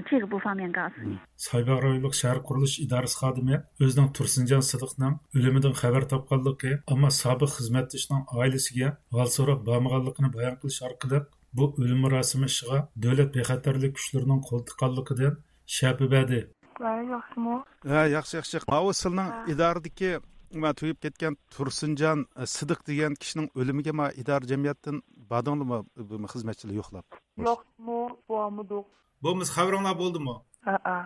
这个不方便告诉你。 سايباغ رايونلۇق شەھەر قۇرۇلۇش ئىدارىسى خادىمى ئۆزىنىڭ تۇرسۇنجان سىدىقنىڭ ئۆلۈمىدىن خەۋەر تاپقانلىقى، ئەمما سابىق خىزمەتدىشىنىڭ ئائىلىسىگە ھال سوراپ بارمىغانلىقىنى بايان قىلىش ئارقىلىق، بۇ ئۆلۈم مۇراسىمى ئىشىغا دۆلەت بىخەتەرلىك كۈچلىرىنىڭ قول تىققانلىقىدىن شەپە بەردى. ۋەي، ياخشىمۇ؟ ھە، ياخشى، ياخشى. ماۋۇ سىلنىڭ ھە. ئىدارىدىكى، ما، تۈگەپ كەتكەن تۇرسۇنجان، ئە، سىدىق دېگەن كىشىنىڭ ئۆلۈمىگە، ما، ئىدارە جەمئىيەتتىن باردىڭلىمۇ، بۇ خىزمەتچىلەر يوقلاپ؟ ياخشىمۇ، بارمىدۇق. بولمىسا خەۋىرىڭلار بولدىمۇ؟ ھەئە.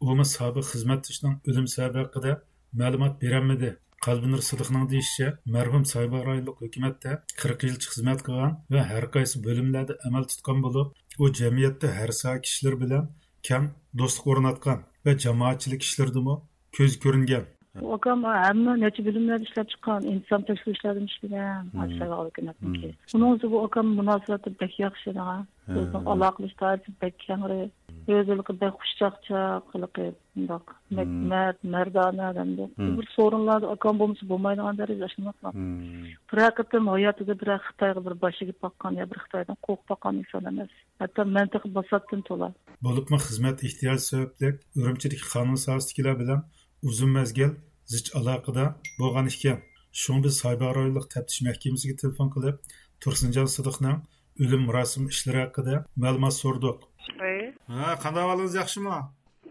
ئۇمۇ سابىق خىزمەتدىشىنىڭ ئۆلۈم سەۋەبى ھەققىدە مەلۇمات بېرەلمىدى. قەلبىنۇر سىدىقنىڭ دېيىشىچە، مەرھۇم سايباغ رايونلۇق ھۆكۈمەتتە قىرىق يىلچە خىزمەت قىلغان ۋە ھەر قايسى بۆلۈملەردە ئەمەل تۇتقان بولۇپ، ئۇ جەمئىيەتتە ھەر ساھە كىشىلىرى بىلەن كەڭ دوستلۇق ئورناتقان ۋە جامائەتچىلىك ئىشلىرىدىمۇ كۆزگە كۆرۈنگەن. ئۇ ئاكام ھەممە نەچچە بۆلۈملەردە ئىشلەپ چىققان، ئىنتىزام تەكشۈرۈشلەردىمۇ ئىشلىگەن، مم. ھاجىسايباغ ھۆكۈمەتنىڭكى. مم. ئۇنىڭ ئۆزى بۇ ئاكام مۇناسىۋەتلىرى بەك ياخشى ئىدىغان. ھە. ئۆزىنىڭ ئالاقىلىشىش دائىرىسى بەك كەڭرى. ئۆزى ھېلىقى بەك خۇشچاقچاق، ھېلىقى مۇنداق مم. مەرد، مەردانە ئادەمدۇ. مم. بىر سورۇنلاردا ئاكام بولمىسا بولمايدىغان دەرىجىدە ئاشۇنداق. مم. بىرەر قېتىم ھاياتىدا بىرەر خىتايغا بىر باش ئېگىپ باققان يا بىر خىتايدىن قورقۇپ باققان ئىنسان ئەمەس. ھەتتا مەنتىقە باساتتىن تولا. بولۇپمۇ خىزمەت ئېھتىياجى سەۋەبلىك ئۈرۈمچىدىكى قانۇن ساھەسىدىكىلەر بىلەن ئۇزۇن مەزگىل زىچ ئالاقىدە بولغان ئىكەن. شۇڭا بىز سايباغ رايونلۇق تەپتىش مەھكىمىسىگە تېلېفون قىلىپ، تۇرسۇنجان سىدىقنىڭ ئۆلۈم مۇراسىمى ئىشلىرى ھەققىدە مەلۇمات سورىدۇق. ۋەي. ھە، قانداق ئەھۋالىڭىز، ياخشىمۇ؟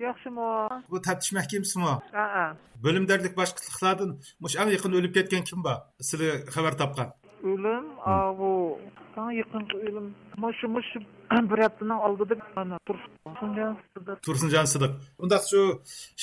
ياخشىمۇ؟ بۇ تەپتىش مەھكىمىسىمۇ؟ ھەئە. بۆلۈمدارلىق باشلىقلاردىن مۇشۇ ئەڭ يېقىندا ئۆلۈپ كەتكەن كىم بار؟ سىلى خەۋەر تاپقان؟ ئۆلۈم، مم. ئاۋۇ، ئەڭ يېقىنقى ئۆلۈم. مانا شۇ، مۇشۇ بىر ھەپتىنىڭ ئالدىدا، مانا، تۇرسۇنجان سىدىق. تۇرسۇنجان سىدىق. ئۇنداق شۇ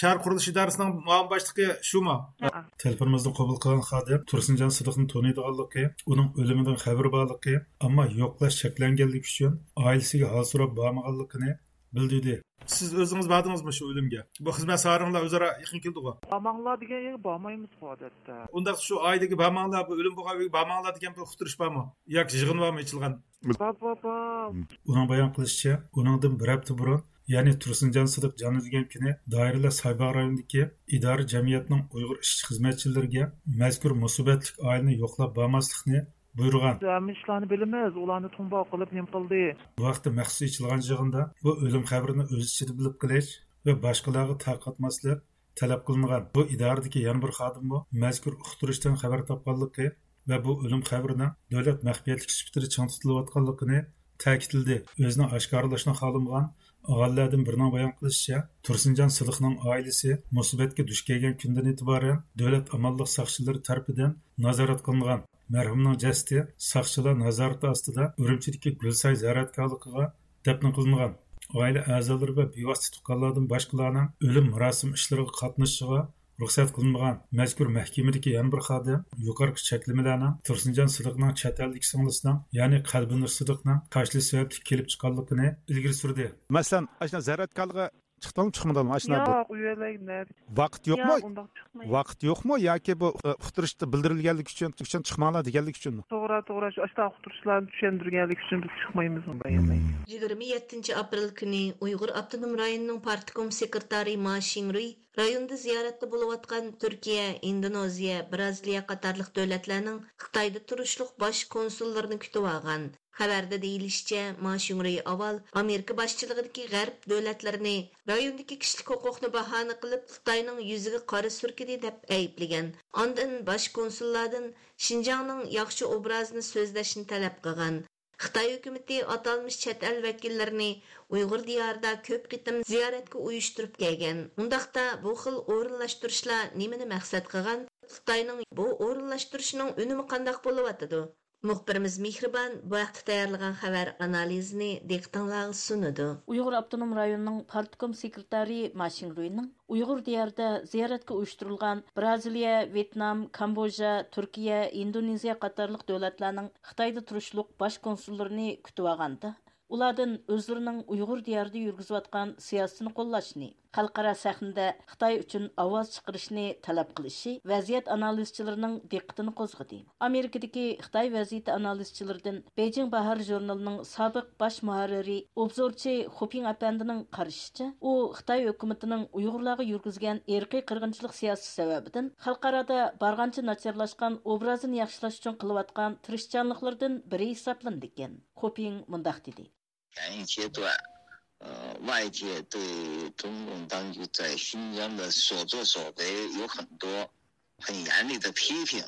شەھەر قۇرۇلۇش ئىدارىسىنىڭ مۇئاۋىن باشلىقى شۇمۇ؟ ھەئە. تېلېفونىمىزنى قوبۇل قىلغان خادىم تۇرسۇنجان سىدىقنى تونۇيدىغانلىقى، ئۇنىڭ ئۆلۈمىدىن خەۋىرى بارلىقى، ئەمما يوقلاش چەكلەنگەنلىكى ئۈچۈن ئائىلىسىگە ھال سوراپ بارمىغانلىقىنى بىلدۈردى. سىز ئۆزىڭىز باردىڭىزمۇ شۇ ئۆلۈمگە؟ بۇ خىزمەت ساھەلىرىڭلار ئۆزئارا يېقىن كېلىدىغۇ؟ بارماڭلار دېگەن يەرگە بارمايمىزغۇ ئادەتتە. ئۇنداق شۇ ئائىلىگە بارماڭلار، بۇ ئۆلۈم بولغان ئۆيگە بارماڭلار دېگەن بىر ئۇقتۇرۇش بارمۇ؟ ياكى يىغىن بارمۇ ئېچىلغان؟ بار، بار، بار. ئۇنىڭ بايان قىلىشىچە، ئۇنىڭدىن بىر ھەپتە بۇرۇن، يەنى تۇرسۇنجان سىدىق جان ئۈزگەن كۈنى دائىرىلەر سايباغ رايونىدىكى ئىدارە جەمئىيەتنىڭ ئۇيغۇر ئىشچى خىزمەتچىلىرىگە مەزكۇر مۇسىبەتلىك ئائىلىنى يوقلاپ بارماسلىقنى بۇيرۇغان. ھەممە ئىشلارنى بىلىمىز، ئۇلارنى تۇڭباۋ قىلىپ نېمە قىلدى؟ بۇ ھەقتە مەخسۇس ئېچىلغان يىغىندا بۇ ئۆلۈم خەۋىرىنى ئۆز ئىچىدە بىلىپ قېلىش ۋە باشقىلارغا تارقاتماسلىق تەلەپ قىلىنغان. بۇ ئىدارىدىكى يەنە بىر خادىممۇ مەزكۇر ئۇقتۇرۇشتىن خەۋەر تاپقانلىقى ۋە بۇ ئۆلۈم خەۋىرىنىڭ دۆلەت مەخپىيەتلىكى سۈپىتىدە چىڭ تۇتۇلۇۋاتقانلىقىنى تەكىتلىدى. ئۆزىنى ئاشكارىلاشنى خالىمىغان ئاغىنىلەردىن بىرىنىڭ بايان قىلىشىچە، تۇرسۇنجان سىدىقنىڭ ئائىلىسى مۇسىبەتكە دۇچ كەلگەن كۈندىن ئېتىبارەن دۆلەت ئامانلىق ساقچىلىرى تەرىپىدىن نازارەت قىلىنغان. مەرھۇمنىڭ جەسىتى ساقچىلار نازارىتى ئاستىدا ئۈرۈمچىدىكى گۈلساي زىيارەتگاھلىقىغا دەپنە قىلىنغان. ئائىلە ئەزالىرى ۋە بىۋاسىتە تۇغقانلاردىن باشقىلارنىڭ ئۆلۈم مۇراسىم ئىشلىرىغا قاتنىشىشىغا رۇخسەت قىلىنمىغان. مەزكۇر مەھكىمىدىكى يەنە بىر خادىم يۇقىرىقى چەكلىمىلەرنىڭ تۇرسۇنجان سىدىقنىڭ چەت ئەلدىكى سىڭلىسىنىڭ، يەنى قەلبىنۇر سىدىقنىڭ قاچىلىشى سەۋەبلىك كېلىپ چىققانلىقىنى ئىلگىرى سۈردى. مەسىلەن، ئاشۇنداق زىيارەتگاھلىقى چىقتىڭمۇ، چىقمىدىڭمۇ؟ ئاشۇنداق بىر ياق، ئۇ يەرلەرگە نەدە؟ ۋاقىت يوقمۇ؟ ياق، ئۇنداق چىقمايمىز. ۋاقىت يوقمۇ ياكى بۇ، ئە، ئۇقتۇرۇشتا بىلدۈرۈلگەنلىكى ئۈچۈن، ئۈچۈن چىقماڭلار دېگەنلىكى ئۈچۈنمۇ؟ توغرا، توغرا، شۇ ئاشۇنداق ئۇقتۇرۇشلارنى چۈشەندۈرگەنلىكى ئۈچۈن بىز چىقمايمىز ئۇ يەرلەرگە. يىگىرمە يەتتىنچى ئاپرېل كۈنى ئۇيغۇر ئاپتونوم رايونىنىڭ پارتكوم سېكرېتارى ما شىڭرۇي رايوندا زىيارەتتە بولۇۋاتقان تۈركىيە، ئىندونېزىيە، بىرازىلىيە قاتارلىق دۆلەتلەرنىڭ خىتايدا تۇرۇشلۇق باش كونسۇللىرىنى كۈتۈۋالغان. خەۋەردە دېيىلىشىچە، ما شىڭرۇي ئاۋۋال ئامېرىكا باشچىلىقىدىكى غەرب دۆلەتلىرىنى رايوندىكى كىشىلىك ھوقۇقنى باھانە قىلىپ، خىتاينىڭ يۈزىگە قارا سۈركىدى دەپ ئەيىبلىگەن. ئاندىن باش كونسۇللاردىن شىنجاڭنىڭ ياخشى ئوبرازىنى سۆزلەشنى تەلەپ قىلغان. خىتاي ھۆكۈمىتى ئاتالمىش چەت ئەل ۋەكىللىرىنى ئۇيغۇر دىيارىدا كۆپ قېتىم زىيارەتكە ئۇيۇشتۇرۇپ كەلگەن. ئۇنداقتا بۇ خىل ئورۇنلاشتۇرۇشلار نېمىنى مەقسەت قىلغان؟ خىتاينىڭ بۇ ئورۇنلاشتۇرۇشىنىڭ ئۈنۈمى قانداق بولۇۋاتىدۇ؟ مۇخبىرىمىز مېھرىبان بۇ ھەقتە تەييارلىغان خەۋەر ئانالىزىنى دىققىتىڭلارغا سۇنىدۇ. ئۇيغۇر ئاپتونوم رايونىنىڭ پارتكوم سېكرېتارى ما شىڭرۇينىڭ ئۇيغۇر دىيارىدا زىيارەتكە ئۇيۇشتۇرۇلغان برازىلىيە، ۋيېتنام، كامبودژا، تۈركىيە، ئىندونېزىيە قاتارلىق دۆلەتلەرنىڭ خىتايدا تۇرۇشلۇق باش كونسۇللىرىنى كۈتۈۋالغاندا، ئۇلاردىن ئۆزلىرىنىڭ ئۇيغۇر دىيارىدا يۈرگۈزۈۋاتقان سىياسىتىنى قوللاشنى، خەلقئارا سەھنىدە خىتاي ئۈچۈن ئاۋاز چىقىرىشنى تەلەپ قىلىشى ۋەزىيەت ئانالىزچىلىرىنىڭ دىققىتىنى قوزغىدى. ئامېرىكىدىكى خىتاي ۋەزىيىتى ئانالىزچىلىرىدىن بېيجىڭ باھار ژۇرنىلىنىڭ سابىق باش مۇھەررىرى، ئوبزورچى خۇپىڭ ئەپەندىنىڭ قارىشىچە، ئۇ خىتاي ھۆكۈمىتىنىڭ ئۇيغۇرلارغا يۈرگۈزگەن ئىرقىي قىرغىنچىلىق سىياسىتى سەۋەبىدىن خەلقئارادا بارغانچە ناچارلاشقان ئوبرازىنى ياخشىلاش ئۈچۈن قىلىۋاتقان تىرىشچانلىقلىرىدىن بىرى ھېسابلىنىدىكەن. خۇپىڭ مۇنداق دېدى. 两岸阶段，呃，外界对中共当局在新疆的所作所为有很多很严厉的批评。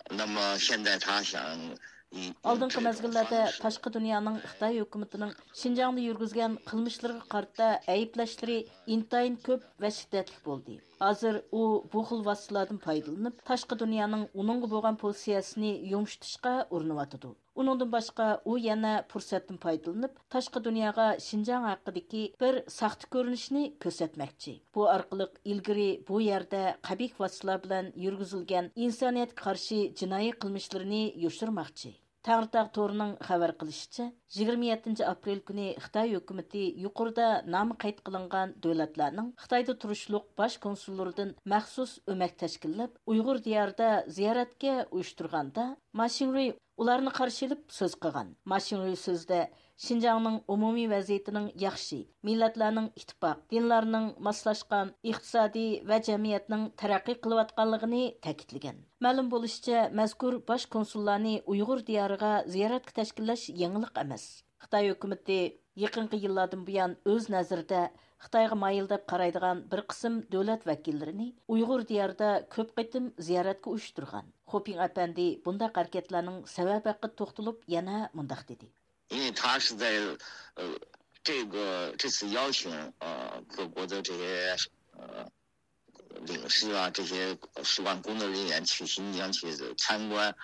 那么现在他想以 ئالدىنقى مەزگىللەردە تاشقى دۇنيانىڭ خىتاي ھۆكۈمىتىنىڭ شىنجاڭدا يۈرگۈزگەن قىلمىشلىرىغا قارىتا ئەيىبلەشلىرى ئىنتايىن كۆپ ۋە شىددەتلىك بولدى. ھازىر ئۇ بۇ خىل ۋاسىتىلاردىن پايدىلىنىپ، تاشقى دۇنيانىڭ ئۇنىڭغا بولغان پوزىتسىيەسىنى يۇمشىتىشقا ئۇرۇنۇۋاتىدۇ. ئۇنىڭدىن باشقا، ئۇ يەنە پۇرسەتتىن پايدىلىنىپ، تاشقى دۇنياغا شىنجاڭ ھەققىدىكى بىر ساختا كۆرۈنۈشنى كۆرسەتمەكچى. بۇ ئارقىلىق ئىلگىرى بۇ يەردە قەبىھ ۋاسىتىلار بىلەن يۈرگۈزۈلگەن ئىنسانىيەتكە قارشى جىنايى قىلمىشلىرىنى يوشۇرماقچى. تەڭرىتاغ تورىنىڭ خەۋەر قىلىشىچە، يىگىرمە يەتتىنچى ئاپرېل كۈنى خىتاي ھۆكۈمىتى يۇقىرىدا نامى قەيت قىلىنغان دۆلەتلەرنىڭ خىتايدا تۇرۇشلۇق باش كونسۇللىرىدىن مەخسۇس ئۆمەك تەشكىللەپ، ئۇيغۇر دىيارىدا زىيارەتكە ئۇيۇشتۇرغاندا، ما شىڭرۇي ئۇلارنى قارشى ئېلىپ سۆز قىلغان. ما شىڭرۇي سۆزىدە شىنجاڭنىڭ ئومۇمىي ۋەزىيىتىنىڭ ياخشى، مىللەتلەرنىڭ ئىتتىپاق، دىنلارنىڭ ماسلاشقان، ئىقتىسادىي ۋە جەمئىيەتنىڭ تەرەققىي قىلىۋاتقانلىقىنى تەكىتلىگەن. مەلۇم بولۇشىچە، مەزكۇر باش كونسۇللارنى ئۇيغۇر دىيارىغا زىيارەتكە تەشكىللەش يېڭىلىق ئەمەس. خىتاي ھۆكۈمىتى يېقىنقى يىللاردىن بۇيان ئۆز نەزىرىدە خىتايغا مايىل دەپ قارايدىغان بىر قىسىم دۆلەت ۋەكىللىرىنى ئۇيغۇر دىيارىدا كۆپ قېتىم زىيارەتكە ئۇيۇشتۇرغان. خۇپىڭ ئەپەندى بۇنداق ھەرىكەتلەرنىڭ سەۋەبى ھەققىدە توختىلىپ يەنە مۇنداق دېدى. 因为他是在呃这个这次邀请呃各国的这些呃领事啊，这些使馆工作人员去新疆去参观。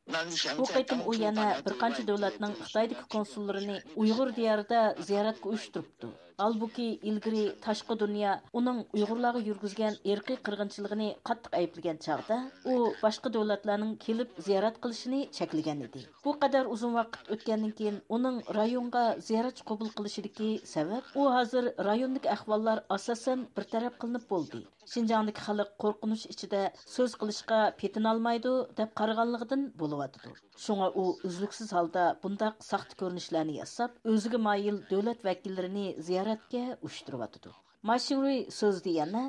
那你想 بۇ قېتىم ئۇ يەنە بىر قانچە دۆلەتنىڭ خىتايدىكى كونسۇللىرىنى ئۇيغۇر دىيارىدا زىيارەتكە ئۇيۇشتۇرۇپتۇ. ھالبۇكى، ئىلگىرى تاشقى دۇنيا ئۇنىڭ ئۇيغۇرلارغا يۈرگۈزگەن ئىرقىي قىرغىنچىلىقىنى قاتتىق ئەيىبلىگەن چاغدا، ئۇ باشقا دۆلەتلەرنىڭ كېلىپ زىيارەت قىلىشىنى چەكلىگەن ئىدى. بۇ قەدەر ئۇزۇن ۋاقىت ئۆتكەندىن كېيىن، ئۇنىڭ رايونغا زىيارەتچى قوبۇل قىلىشىدىكى سەۋەب، ئۇ ھازىر رايوندىكى ئەھۋاللار ئاساسەن بىر تەرەپ قىلىنىپ بولدى، شىنجاڭدىكى خەلق قورقۇنچ ئىچىدە سۆز قىلىشقا پېتىنالمايدۇ، دەپ قارىغانلىقىدىن بولۇۋاتىدۇ. شۇڭا ئۇ ئۈزلۈكسىز ھالدا بۇنداق ساختا كۆرۈنۈشلەرنى ياساپ، ئۆزىگە مايىل دۆلەت ۋەكىللىرىنى زىيارەتكە ئۇيۇشتۇرۇۋاتىدۇ. ما شىڭرۇي سۆزىدە يەنە،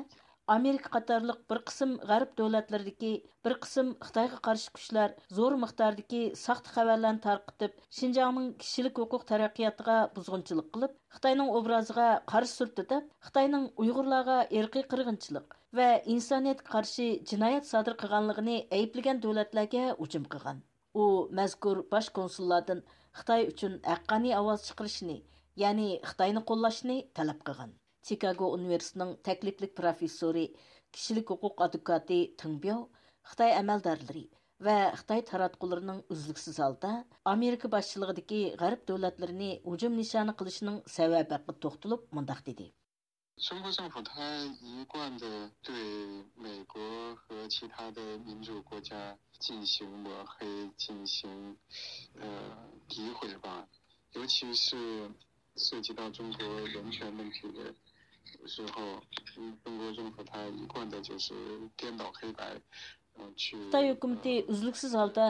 ئامېرىكا قاتارلىق بىر قىسىم غەرب دۆلەتلىرىدىكى بىر قىسىم خىتايغا قارشى كۈچلەر زور مىقداردىكى ساختا خەۋەرلەرنى تارقىتىپ، شىنجاڭنىڭ كىشىلىك ھوقۇق تەرەققىياتىغا بۇزغۇنچىلىق قىلىپ، خىتاينىڭ ئوبرازىغا قارا سۈرتتى دەپ، خىتاينىڭ ئۇيغۇرلارغا ئىرقىي قىرغىنچىلىق ۋە ئىنسانىيەتكە قارشى جىنايەت سادىر قىلغانلىقىنى ئەيىبلىگەن دۆلەتلەرگە ھۇجۇم قىلغان. ئۇ مەزكۇر باش كونسۇللاردىن خىتاي ئۈچۈن ھەققانىي ئاۋاز چىقىرىشنى، يەنى خىتاينى قوللاشنى تەلەپ قىلغان. چىكاگو ئۇنىۋېرسىتېتىنىڭ تەكلىپلىك پروفېسسورى، كىشىلىك ھوقۇق ئادۋوكاتى تېڭ بياۋ خىتاي ئەمەلدارلىرى ۋە خىتاي تاراتقۇلىرىنىڭ ئۈزلۈكسىز ھالدا ئامېرىكا باشچىلىقىدىكى غەرب دۆلەتلىرىنى ھۇجۇم نىشانى قىلىشىنىڭ سەۋەبى ھەققىدە توختىلىپ مۇنداق دېدى. 中国政府它一贯的对美国和其他的民主国家进行抹黑、进行呃诋毁吧，尤其是涉及到中国人权问题的时候，嗯，中国政府它一贯的就是颠倒黑白，呃，去 خىتاي ھۆكۈمىتى ئۈزلۈكسىز ھالدا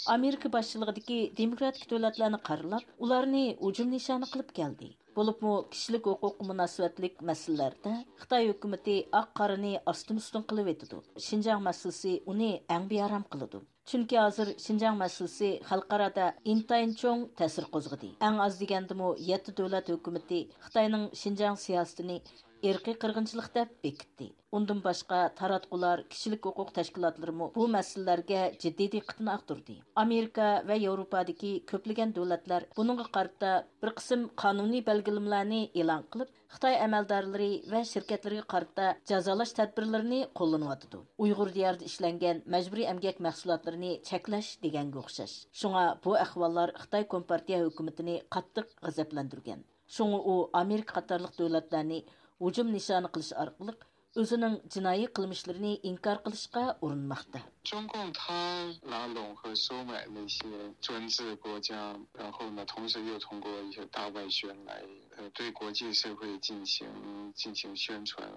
ئامېرىكا باشچىلىقىدىكى دېموكراتىك دۆلەتلەرنى قارىلاپ، ئۇلارنى ھۇجۇم نىشانى قىلىپ كەلدى. بولۇپمۇ كىشىلىك ھوقۇققا مۇناسىۋەتلىك مەسىلىلەردە خىتاي ھۆكۈمىتى ئاق-قارىنى ئاستىن-ئۈستۈن قىلىۋېتىدۇ. شىنجاڭ مەسىلىسى ئۇنى ئەڭ بىئارام قىلىدۇ. چۈنكى ھازىر شىنجاڭ مەسىلىسى خەلقئارادا ئىنتايىن چوڭ تەسىر قوزغىدى. ئەڭ ئاز دېگەندىمۇ يەتتە دۆلەت ھۆكۈمىتى خىتاينىڭ شىنجاڭ سىياسىتىنى ئىرقىي قىرغىنچىلىق دەپ بېكىتتى. ئۇندىن باشقا، تاراتقۇلار، كىشىلىك ھوقۇق تەشكىلاتلىرىمۇ بۇ مەسىلىلەرگە جىددىي دىققىتىنى ئاغدۇردى. ئامېرىكا ۋە ياۋروپادىكى كۆپلىگەن دۆلەتلەر بۇنىڭغا قارىتا بىر قىسىم قانۇنىي بەلگىلىمىلەرنى ئېلان قىلىپ، خىتاي ئەمەلدارلىرى ۋە شىركەتلىرىگە قارىتا جازالاش تەدبىرلىرىنى قوللىنىۋاتىدۇ. ئۇيغۇر دىيارىدا ئىشلەنگەن مەجبۇرىي ئەمگەك مەھسۇلاتلىرىنى چەكلەش دېگەنگە ئوخشاش. شۇڭا بۇ ئەھۋاللار خىتاي كومپارتىيە ھۆكۈمىتىنى قاتتىق غەزەپلەندۈرگەن. شۇڭا ئۇ ئامېرىكا قاتارلىق دۆلەتلەرنى ھۇجۇم نىشانى قىلىش ئارقىلىق ئۆزىنىڭ جىنايى قىلمىشلىرىنى ئىنكار قىلىشقا ئۇرۇنماقتا. 中共他拉拢和收买那些专制国家，然后呢，同时又通过一些大外宣来，呃，对国际社会进行进行宣传，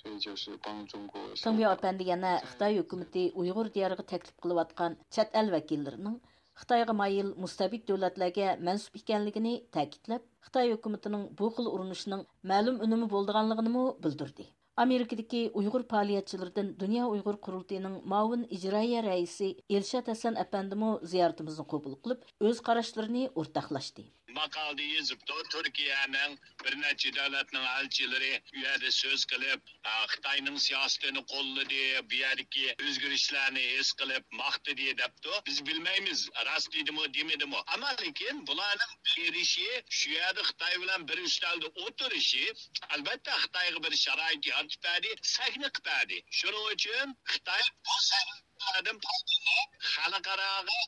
所以就是帮中国。 تېڭبياۋ ئەپەندى يەنە خىتاي ھۆكۈمىتى ئۇيغۇر دىيارىغا تەكلىپ قىلىۋاتقان چەت ئەل ۋەكىللىرىنىڭ خىتايغا مايىل مۇستەبىت دۆلەتلەرگە مەنسۇپ ئىكەنلىكىنى تەكىتلەپ، خىتاي ھۆكۈمىتىنىڭ بۇ خىل ئۇرۇنۇشنىڭ مەلۇم ئۈنۈمى بولىدىغانلىقىنىمۇ بىلدۈردى. ئامېرىكىدىكى ئۇيغۇر پائالىيەتچىلىرىدىن دۇنيا ئۇيغۇر قۇرۇلتىيىنىڭ مۇئاۋىن ئىجرائىيە رەئىسى ئىلشات ھەسەن ئەپەندىمۇ زىيارىتىمىزنى قوبۇل قىلىپ، ئۆز قاراشلىرىنى ئورتاقلاشتى. ماقالىدە يېزىپتۇ، تۈركىيەنىڭ بىر نەچچە دۆلەتنىڭ ئەلچىلىرى ئۇ يەردە سۆز قىلىپ، ئا، خىتاينىڭ سىياسىتىنى قوللىدى، بۇ يەردىكى ئۆزگىرىشلەرنى ھېس قىلىپ ماختىدى دەپتۇ. بىز بىلمەيمىز، راست دېدىمۇ، دېمىدىمۇ. ئەمما لېكىن بۇلارنىڭ بېرىشى، شۇ يەردە خىتاي بىلەن بىر ئۈستەلدە ئولتۇرۇشى، ئەلۋەتتە، خىتايغا بىر شارائىت يارىتىپ بەردى، سەھنە قىلىپ بەردى. شۇنىڭ ئۈچۈن خىتاي بۇ سەھنىلەردىن پايدىلىنىپ، خەلقئاراغا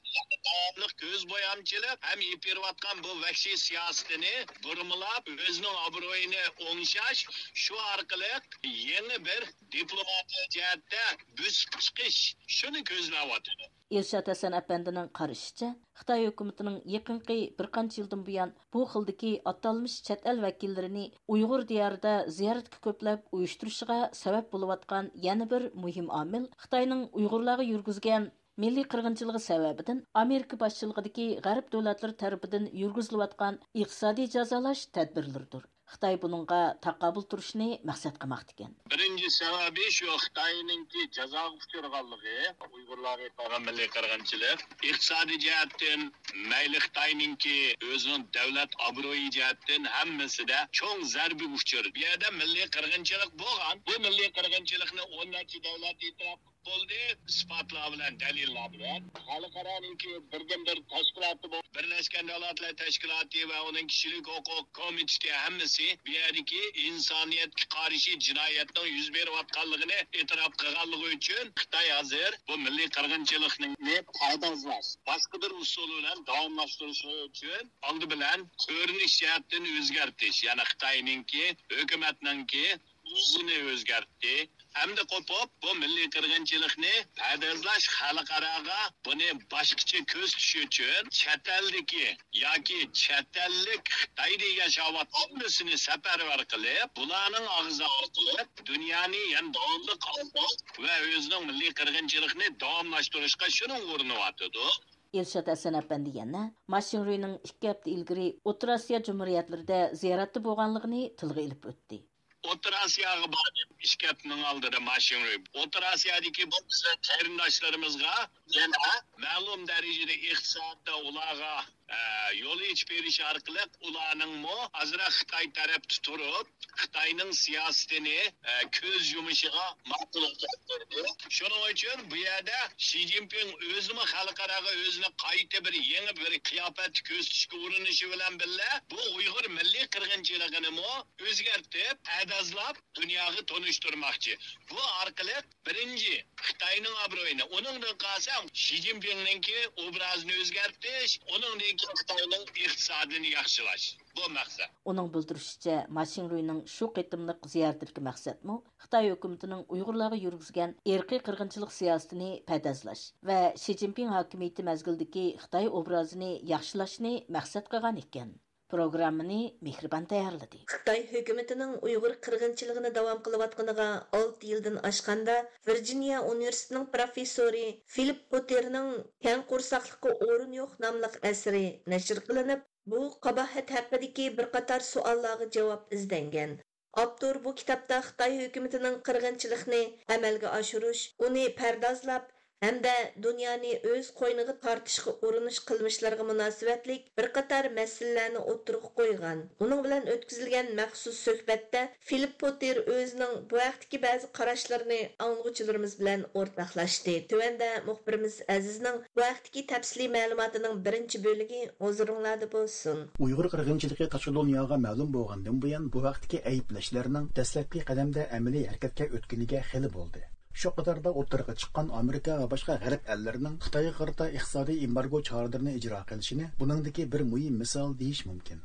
داۋاملىق كۆز بويامچىلىق ھەم ئېلىپ بېرىۋاتقان بۇ ۋەھشىي سىياسىتىنى بۇرمىلاپ، ئۆزىنىڭ ئابرۇيىنى ئوڭشاش، شۇ ئارقىلىق يېڭى بىر دىپلوماتىيە جەھەتتە بۆسۈپ چىقىش، شۇنى كۆزلەۋاتىدۇ. ئىلشات ھەسەن ئەپەندىنىڭ قارىشىچە، خىتاي ھۆكۈمىتىنىڭ يېقىنقى بىر قانچە يىلدىن بۇيان بۇ خىلدىكى ئاتالمىش چەت ئەل ۋەكىللىرىنى ئۇيغۇر دىيارىدا زىيارەتكە كۆپلەپ ئۇيۇشتۇرۇشىغا سەۋەب بولۇۋاتقان يەنە بىر مۇھىم ئامىل خىتاينىڭ ئۇيغۇرلارغا يۈرگۈزگەن مىللىي قىرغىنچىلىقى سەۋەبىدىن ئامېرىكا باشچىلىقىدىكى غەرب دۆلەتلىرى تەرىپىدىن يۈرگۈزۈلۈۋاتقان ئىقتىسادىي جازالاش تەدبىرلىرىدۇر. خىتاي بۇنىڭغا تاقابىل تۇرۇشنى مەقسەت قىلماقتىكەن. بىرىنچى سەۋەبى شۇ خىتاينىڭكى جازاغا ئۇچرىغانلىقى، ئۇيغۇرلارغا قىلغان مىللىي قىرغىنچىلىق، ئىقتىسادىي جەھەتتىن مەيلى خىتاينىڭكى ئۆزىنىڭ دۆلەت ئابرۇيى جەھەتتىن ھەممىسىدە چوڭ زەربىگە ئۇچرىدى. بۇ يەردە مىللىي قىرغىنچىلىق بولغان. بۇ مىللىي قىرغىنچىلىقنى ئون نەچچە دۆلەت ئېتىراپ بولدى، ئىسپاتلار بىلەن، دەلىللەر بىلەن. خەلقئارانىڭكى بىردىنبىر تەشكىلاتى بۇ. بىرلەشكەن دۆلەتلەر تەشكىلاتى ۋە ئۇنىڭ كىشىلىك ھوقۇق كومىتېتى ھەممىسى بۇ يەردىكى ئىنسانىيەتكە قارشى جىنايەتنىڭ يۈز بېرىۋاتقانلىقىنى ئېتىراپ قىلغانلىقى ئۈچۈن خىتاي ھازىر بۇ مىللىي قىرغىنچىلىقنى پەردازلاش، باشقا بىر ئۇسۇل بىلەن داۋاملاشتۇرۇش ئۈچۈن ئالدى بىلەن كۆرۈنۈش جەھەتتىن ئۆزگەرتىش، يەنى خىتاينىڭكى ھۆكۈمەتنىڭكى يۈزىنى ئۆزگەرتتى. ئەمدى قوپۇپ، بۇ مىللىي قىرغىنچىلىقنى پەردازلاش، خەلقئاراغا بۇنى باشقىچە كۆرسىتىش ئۈچۈن چەت ئەلدىكى ياكى چەت ئەللىك خىتايدا ياشاۋاتقان ھەممىسىنى سەپەرۋەر قىلىپ، بۇلارنىڭ ئاغزى ئارقىلىق دۇنيانى يەنە داۋاملىق ئالداش ۋە ئۆزىنىڭ مىللىي قىرغىنچىلىقىنى داۋاملاشتۇرۇشقا شۇنىڭغا ئۇرۇنۇۋاتىدۇ. ئىلشات ھەسەن ئەپەندى يەنە ما شىڭرۇينىڭ ئىككى ھەپتە ئىلگىرى ئوتتۇرا ئاسىيا جۇمھۇرىيەتلىرىدە زىيارەتتە بولغانلىقىنى تىلغا ئېلىپ ئۆتتى. ئوتتۇرا ئاسىياغا باردىم ئىككى ھەپتىنىڭ ئالدىدا ما شىڭرۇي. ئوتتۇرا ئاسىيادىكى بۇ بىزنىڭ قېرىنداشلىرىمىزغا يەنە مەلۇم دەرىجىدە ئىقتىسادتا ئۇلارغا، ئە، يول ئېچىپ بېرىش ئارقىلىق ئۇلارنىڭمۇ ئازراق خىتاي تەرەپتە تۇرۇپ، خىتاينىڭ سىياسىتىنى، ئە، كۆز يۇمۇشىغا ماقۇللۇق كەلتۈردى. شۇنىڭ ئۈچۈن بۇ يەردە شى جىنپىڭ ئۆزىمۇ خەلقئاراغا ئۆزىنى قايتا بىر يېڭى بىر قىياپەتتە كۆرسىتىشكە ئۇرۇنۇشى بىلەن بىللە، بۇ ئۇيغۇر مىللىي قىرغىنچىلىقىنىمۇ ئۆزگەرتىپ، پەردازلاپ دۇنياغا تونۇشتۇرماقچى. بۇ ئارقىلىق بىرىنچى خىتاينىڭ ئابرۇيىنى، ئۇنىڭدىن قالسا شى جىنپىڭنىڭكى ئوبرازىنى ئۆزگەرتىش، ئۇنىڭدىن كېيىن خىتاينىڭ ئىقتىسادىنى ياخشىلاش. بۇ مەقسەت. ئۇنىڭ بىلدۈرۈشىچە، ما شىڭرۇينىڭ شۇ قېتىملىق زىيارىتىدىكى مەقسەتمۇ خىتاي ھۆكۈمىتىنىڭ ئۇيغۇرلارغا يۈرگۈزگەن ئىرقىي قىرغىنچىلىق سىياسىتىنى پەردازلاش ۋە شى جىنپىڭ ھاكىمىيىتى مەزگىلىدىكى خىتاي ئوبرازىنى ياخشىلاشنى مەقسەت قىلغان ئىكەن. پروگراممىنى مېھرىبان تەييارلىدى. خىتاي ھۆكۈمىتىنىڭ ئۇيغۇر قىرغىنچىلىقىنى داۋام قىلىۋاتقىنىغا ئالتە يىلدىن ئاشقاندا، ۋىرجىنىيە ئۇنىۋېرسىتېتىنىڭ پروفېسسورى فىلىپ پوتېرنىڭ كەڭ قورساقلىققا ئورۇن يوق ناملىق ئەسىرى نەشر قىلىنىپ، بۇ قاباھەت ھەققىدىكى بىر قاتار سوئاللارغا جاۋاب ئىزدەنگەن. ئاپتور بۇ كىتابتا خىتاي ھۆكۈمىتىنىڭ قىرغىنچىلىقنى ئەمەلگە ئاشۇرۇش، ئۇنى پەردازلاپ، ھەمدە دۇنيانى ئۆز قوينىغا تارتىشقا ئۇرۇنۇش قىلمىشلىرىغا مۇناسىۋەتلىك بىر قاتار مەسىلىلەرنى ئوتتۇرىغا قويغان. ئۇنىڭ بىلەن ئۆتكۈزۈلگەن مەخسۇس سۆھبەتتە فىلىپ پوتېر ئۆزىنىڭ بۇ ھەقتىكى بەزى قاراشلىرىنى ئاڭلىغۇچىلىرىمىز بىلەن ئورتاقلاشتى. تۆۋەندە مۇخبىرىمىز ئەزىزنىڭ بۇ ھەقتىكى تەپسىلىي مەلۇماتىنىڭ بىرىنچى بۆلىكى ھۇزۇرۇڭلاردا بولسۇن. ئۇيغۇر قىرغىنچىلىقى تاشقى دۇنياغا مەلۇم بولغاندىن بۇيان، بۇ ھەقتىكى ئەيىبلەشلەرنىڭ دەسلەپكى قەدەمدە ئەمەلىي ھەرىكەتكە ئۆتكىنىگە خېلى بولدى. شۇ قاتاردا ئوتتۇرىغا چىققان ئامېرىكا ۋە باشقا غەرب ئەللىرىنىڭ خىتايغا قارىتا ئىقتىسادىي ئېمبارگو چارىلىرىنى ئىجرا قىلىشىنى بۇنىڭدىكى بىر مۇھىم مىسال دېيىش مۇمكىن.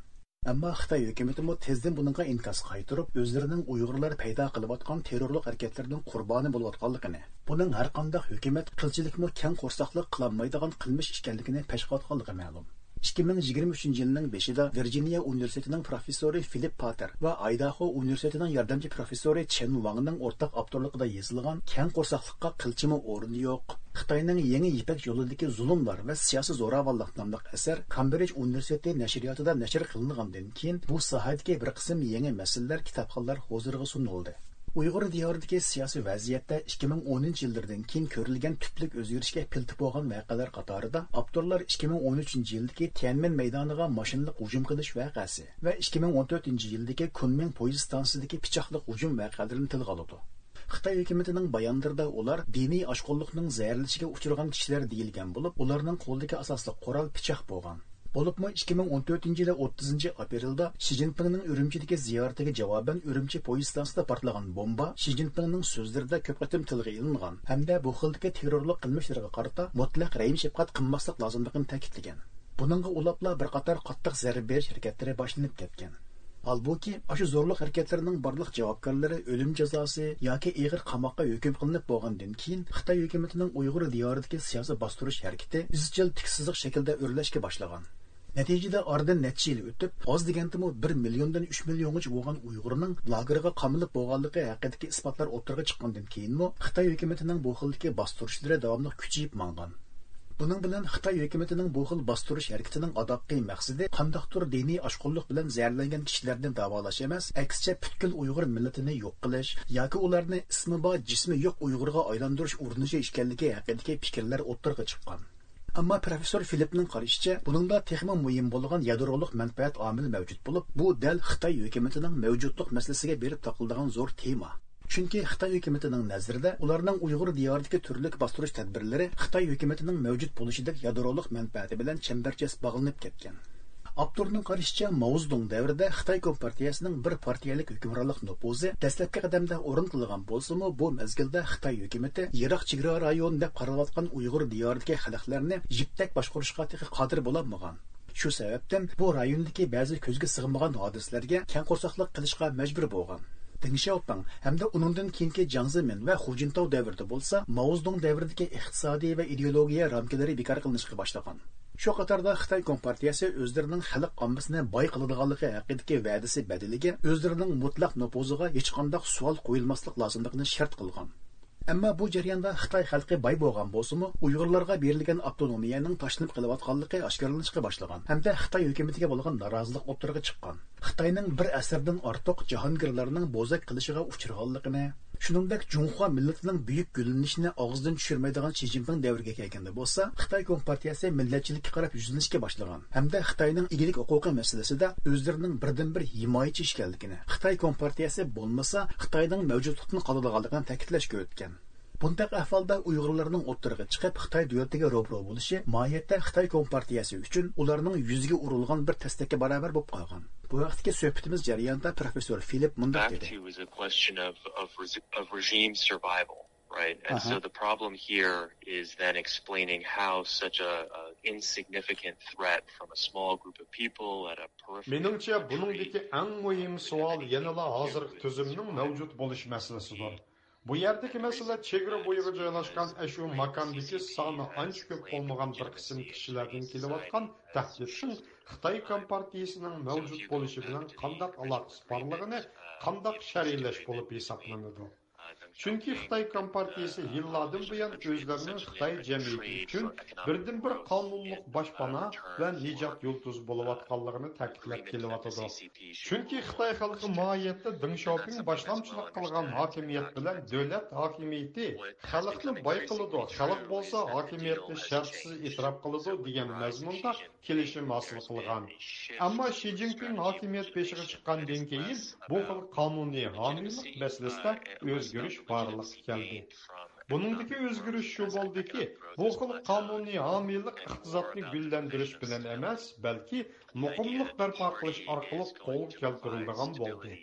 ئەمما خىتاي ھۆكۈمىتىمۇ تېزدىن بۇنىڭغا ئىنكاس قايتۇرۇپ، ئۆزلىرىنىڭ ئۇيغۇرلار پەيدا قىلىۋاتقان تېررورلۇق ھەرىكەتلىرىنىڭ قۇربانى بولۇۋاتقانلىقىنى، بۇنىڭ ھەرقانداق ھۆكۈمەت قىلچىلىكمۇ كەڭ قورساقلىق قىلالمايدىغان قىلمىش ئىكەنلىكىنى پەشقىلاتقانلىقى مەلۇم. ئىككى مىڭ يىگىرمە ئۈچىنچى يىلنىڭ بېشىدا ۋىرجىنىيە ئۇنىۋېرسىتېتىنىڭ پروفېسسورى فىلىپ پاتېر ۋە ئايداھو ئۇنىۋېرسىتېتىنىڭ ياردەمچى پروفېسسورى چېن ۋاڭنىڭ ئورتاق ئاپتورلۇقىدا يېزىلغان كەڭ قورساقلىققا قىلچىمۇ ئورۇن يوق، خىتاينىڭ يېڭى يىپەك يولىدىكى زۇلۇملار ۋە سىياسىي زوراۋانلىق ناملىق ئەسەر كامبرىج ئۇنىۋېرسىتېتى نەشرىياتىدا نەشر قىلىنغاندىن كېيىن، بۇ ساھەدىكى بىر قىسىم يېڭى مەسىلىلەر كىتابخانلار ھۇزۇرىغا سۇنۇلدى. ئۇيغۇر دىيارىدىكى سىياسىي ۋەزىيەتتە ئىككى مىڭ ئونىنچى يىللىرىدىن كېيىن كۆرۈلگەن تۈپلۈك ئۆزگىرىشكە پىلتە بولغان ۋەقەلەر قاتارىدا ئاپتورلار ئىككى مىڭ ئون ئۈچىنچى يىلدىكى تيەنئەنمېن مەيدانىغا ماشىنىلىق ھۇجۇم قىلىش ۋەقەسى ۋە ئىككى مىڭ ئون تۆتىنچى يىلدىكى كۇنمىڭ پويىز ستانسىسىدىكى پىچاقلىق ھۇجۇم ۋەقەلىرىنى تىلغا ئالىدۇ. خىتاي ھۆكۈمىتىنىڭ بايانلىرىدا ئۇلار دىنىي ئاشقۇنلۇقنىڭ زەھەرلىشىگە ئۇچرىغان كىشىلەر دېيىلگەن بولۇپ، ئۇلارنىڭ قولىدىكى ئاساسلىق قورال پىچاق بولغان. بولۇپمۇ ئىككى مىڭ ئون تۆتىنچى يىلى ئوتتۇزىنچى ئاپرېلدا شى جىنپىڭنىڭ ئۈرۈمچىدىكى زىيارىتىگە جاۋابەن ئۈرۈمچى پويىز ستانسىسىدا پارتلىغان بومبا شى جىنپىڭنىڭ سۆزلىرىدە كۆپ قېتىم تىلغا ئېلىنغان ھەمدە بۇ خىلدىكى تېررورلۇق قىلمىشلىرىغا قارىتا مۇتلەق رەھىم-شەپقەت قىلماسلىق لازىملىقىنى تەكىتلىگەن. بۇنىڭغا ئۇلاپلا بىر قاتار قاتتىق زەربە بېرىش ھەرىكەتلىرى باشلىنىپ كەتكەن. ھالبۇكى، ئاشۇ زورلۇق ھەرىكەتلىرىنىڭ بارلىق جاۋابكارلىرى ئۆلۈم جازاسى ياكى ئېغىر قاماققا ھۆكۈم قىلىنىپ بولغاندىن كېيىن، خىتاي ھۆكۈمىتىنىڭ ئۇيغۇر دىيارىدىكى سىياسىي باستۇرۇش ھەرىكىتى ئىزچىل تىك سىزىق شەكىلدە ئۆرلەشكە باشلىغان. نەتىجىدە، ئارىدىن نەچچە يىل ئۆتۈپ، ئاز دېگەندىمۇ بىر مىليوندىن ئۈچ مىليونغىچە بولغان ئۇيغۇرنىڭ لاگېرغا قامىلىپ بولغانلىقى ھەققىدىكى ئىسپاتلار ئوتتۇرىغا چىققاندىن كېيىنمۇ، خىتاي ھۆكۈمىتىنىڭ بۇ خىلدىكى باستۇرۇشلىرى داۋاملىق كۈچىيىپ ماڭغان. بۇنىڭ بىلەن خىتاي ھۆكۈمىتىنىڭ بۇ خىل باستۇرۇش ھەرىكىتىنىڭ ئاداققى مەقسىتى قانداقتۇر دىنىي ئاشقۇنلۇق بىلەن زەھەرلەنگەن كىشىلەرنى داۋالاش ئەمەس، ئەكسىچە پۈتكۈل ئۇيغۇر مىللىتىنى يوق قىلىش ياكى ئۇلارنى ئىسمى بار، جىسمى يوق ئۇيغۇرغا ئايلاندۇرۇش ئۇرۇنۇشى ئىكەنلىكى ھەققىدىكى پىكىرلەر ئوتتۇرىغا چىققان. ئەمما پروفېسسور فىلىپنىڭ قارىشىچە، بۇنىڭدا تېخىمۇ مۇھىم بولغان يادرولۇق مەنپەئەت ئامىلى مەۋجۇت بولۇپ، بۇ دەل خىتاي ھۆكۈمىتىنىڭ مەۋجۇتلۇق مەسىلىسىگە بېرىپ تاقىلىدىغان زور تېما. چۈنكى خىتاي ھۆكۈمىتىنىڭ نەزىرىدە، ئۇلارنىڭ ئۇيغۇر دىيارىدىكى تۈرلۈك باستۇرۇش تەدبىرلىرى خىتاي ھۆكۈمىتىنىڭ مەۋجۇت بولۇشىدەك يادرولۇق مەنپەئەتى بىلەن چەمبەرچاس باغلىنىپ كەتكەن. ئاپتورنىڭ قارىشىچە، ماۋزېدۇڭ دەۋرىدە خىتاي كومپارتىيەسىنىڭ بىر پارتىيەلىك ھۆكۈمرانلىق نوپۇزى دەسلەپكى قەدەمدە ئورنىتىلغان بولسىمۇ، بۇ مەزگىلدە خىتاي ھۆكۈمىتى يىراق چېگرا رايونى دەپ قارىلىۋاتقان ئۇيغۇر دىيارىدىكى خەلقلەرنى يىپتەك باشقۇرۇشقا تېخى قادىر بولالمىغان. شۇ سەۋەبتىن بۇ رايوندىكى بەزى كۆزگە سىغمىغان ھادىسىلەرگە كەڭ قورساقلىق قىلىشقا مەجبۇر بولغان. دېڭ شياۋپىڭ ھەمدە ئۇنىڭدىن كېيىنكى جياڭ زېمىن ۋە خۇ جىنتاۋ دەۋرىدە بولسا، ماۋزېدۇڭ دەۋرىدىكى ئىقتىسادىي ۋە ئىدېئولوگىيە رامكىلىرى بىكار قىلىنىشقا باشلىغان. شۇ قاتاردا خىتاي كومپارتىيەسى ئۆزلىرىنىڭ خەلق ئاممىسىنى باي قىلىدىغانلىقى ھەققىدىكى ۋەدىسى بەدىلىگە ئۆزلىرىنىڭ مۇتلەق نوپۇزىغا ھېچقانداق سوئال قويۇلماسلىق لازىملىقىنى شەرت قىلغان. ئەمما بۇ جەرياندا خىتاي خەلقى باي بولغان بولسىمۇ، ئۇيغۇرلارغا بېرىلگەن ئاپتونومىيەنىڭ تاشلىنىپ قېلىۋاتقانلىقى ئاشكارىلىنىشقا باشلىغان ھەمدە خىتاي ھۆكۈمىتىگە بولغان نارازىلىق ئوتتۇرىغا چىققان. خىتاينىڭ بىر ئەسىردىن ئارتۇق جاھانگىرلارنىڭ بوزەك قىلىشىغا ئۇچرىغانلىقىنى، شۇنىڭدەك جۇڭخۇا مىللىتىنىڭ بۈيۈك گۈللىنىشىنى ئاغزىدىن چۈشۈرمەيدىغان شى جىنپىڭ دەۋرىگە كەلگەندە بولسا، خىتاي كومپارتىيەسى مىللەتچىلىككە قاراپ يۈزلىنىشكە باشلىغان ھەمدە خىتاينىڭ ئىگىلىك ھوقۇقى مەسىلىسىدە ئۆزلىرىنىڭ بىردىنبىر ھىمايىچى ئىكەنلىكىنى، خىتاي كومپارتىيەسى بولمىسا، خىتاينىڭ مەۋجۇتلۇقتىن قالىدىغانلىقىنى تەكىتلەشكە ئۆتكەن. بۇنداق ئەھۋالدا ئۇيغۇرلارنىڭ ئوتتۇرىغا چىقىپ، خىتاي دۆلىتىگە روبىرو بولۇشى ماھىيەتتە خىتاي كومپارتىيەسى ئۈچۈن ئۇلارنىڭ يۈزىگە ئۇرۇلغان بىر تەستەككە باراۋەر بولۇپ قالغان. بۇ ھەقتىكى سۆھبىتىمىز جەريانىدا پروفېسسور فىلىپ مۇنداق دېدى. Back to is a question of, of, res- of regime survival, right? And so the problem here is then explaining how such a, a insignificant threat from a small group of people at a periphery of the country مېنىڭچە، بۇنىڭدىكى ئەڭ مۇھىم سوئال يەنىلا ھازىرقى تۈزۈمنىڭ مەۋجۇت بولۇش مەسىلىسىدۇر. بۇ يەردىكى مەسىلە چېگرا بويىغا جايلاشقان ئەشۇ ماكاندىكى سانى ئانچە كۆپ بولمىغان بىر قىسىم كىشىلەردىن كېلىۋاتقان تەھدىتنىڭ خىتاي كومپارتىيىسىنىڭ مەۋجۇت بولۇشى بىلەن قانداق ئالاقىسى بارلىقىنى قانداق شەرھلەش بولۇپ ھېسابلىنىدۇ؟ چۈنكى خىتاي كومپارتىيىسى يىللاردىن بۇيان ئۆزلىرىنىڭ خىتاي جەمئىيىتى ئۈچۈن بىردىنبىر قانۇنلۇق باشپانا ۋە نىجات يۇلتۇزى بولۇۋاتقانلىقىنى تەكىتلەپ كېلىۋاتىدۇ. چۈنكى خىتاي خەلقى ماھىيەتتە دېڭ شياۋپىڭ باشلامچىلىق قىلغان ھاكىمىيەت بىلەن دۆلەت ھاكىمىيىتى خەلقنى باي قىلىدۇ، خەلق بولسا ھاكىمىيەتنى شەرتسىز ئېتىراپ قىلىدۇ دېگەن مەزمۇندا كېلىشىم ھاسىل قىلغان. ئەمما شى جىنپىڭ ھاكىمىيەت بېشىغا چىققاندىن كېيىن بۇ خىل قانۇنىي ھامىيلىق مەسىلىسىدە ئۆزگىرىش بارلىققا كەلدى. بۇنىڭدىكى ئۆزگىرىش شۇ بولدىكى، بۇ خىل قانۇنىي ھامىيلىق ئىقتىسادنى گۈللەندۈرۈش بىلەن ئەمەس، بەلكى مۇقىملىق بەرپا قىلىش ئارقىلىق قولغا كەلتۈرۈلىدىغان بولدى.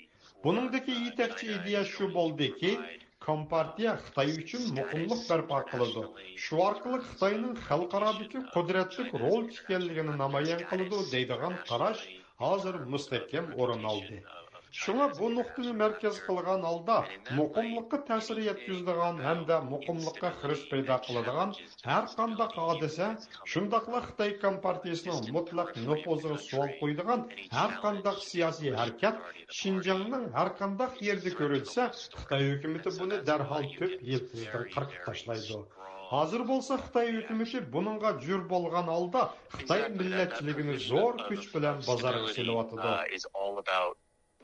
بۇنىڭدىكى يېتەكچى ئىدىيە شۇ بولدىكى، كومپارتىيە خىتاي ئۈچۈن مۇقىملىق بەرپا قىلىدۇ، شۇ ئارقىلىق خىتاينىڭ خەلقئارادىكى قۇدرەتلىك رول ئىكەنلىكىنى نامايان قىلىدۇ دەيدىغان قاراش ھازىر مۇستەھكەم ئورۇن ئالدى. شۇڭا بۇ نۇقتىنى مەركەز قىلغان ھالدا مۇقىملىققا تەسىر يەتكۈزىدىغان ھەمدە مۇقىملىققا خىرىس پەيدا قىلىدىغان ھەر قانداق ھادىسە، شۇنداقلا خىتاي كومپارتىيىسىنىڭ مۇتلەق نوپۇزىغا سوئال قويىدىغان ھەر قانداق سىياسىي ھەرىكەت شىنجاڭنىڭ ھەر قانداق يېرىدە كۆرۈلسە، خىتاي ھۆكۈمىتى بۇنى دەرھال تۆت يىلتىزدىن قىرقىپ تاشلايدۇ. ھازىر بولسا خىتاي ھۆكۈمىتى بۇنىڭغا جۈر بولغان ھالدا خىتاي مىللەتچىلىكىنى زور كۈچ بىلەن بازارغا سېلىۋاتىدۇ.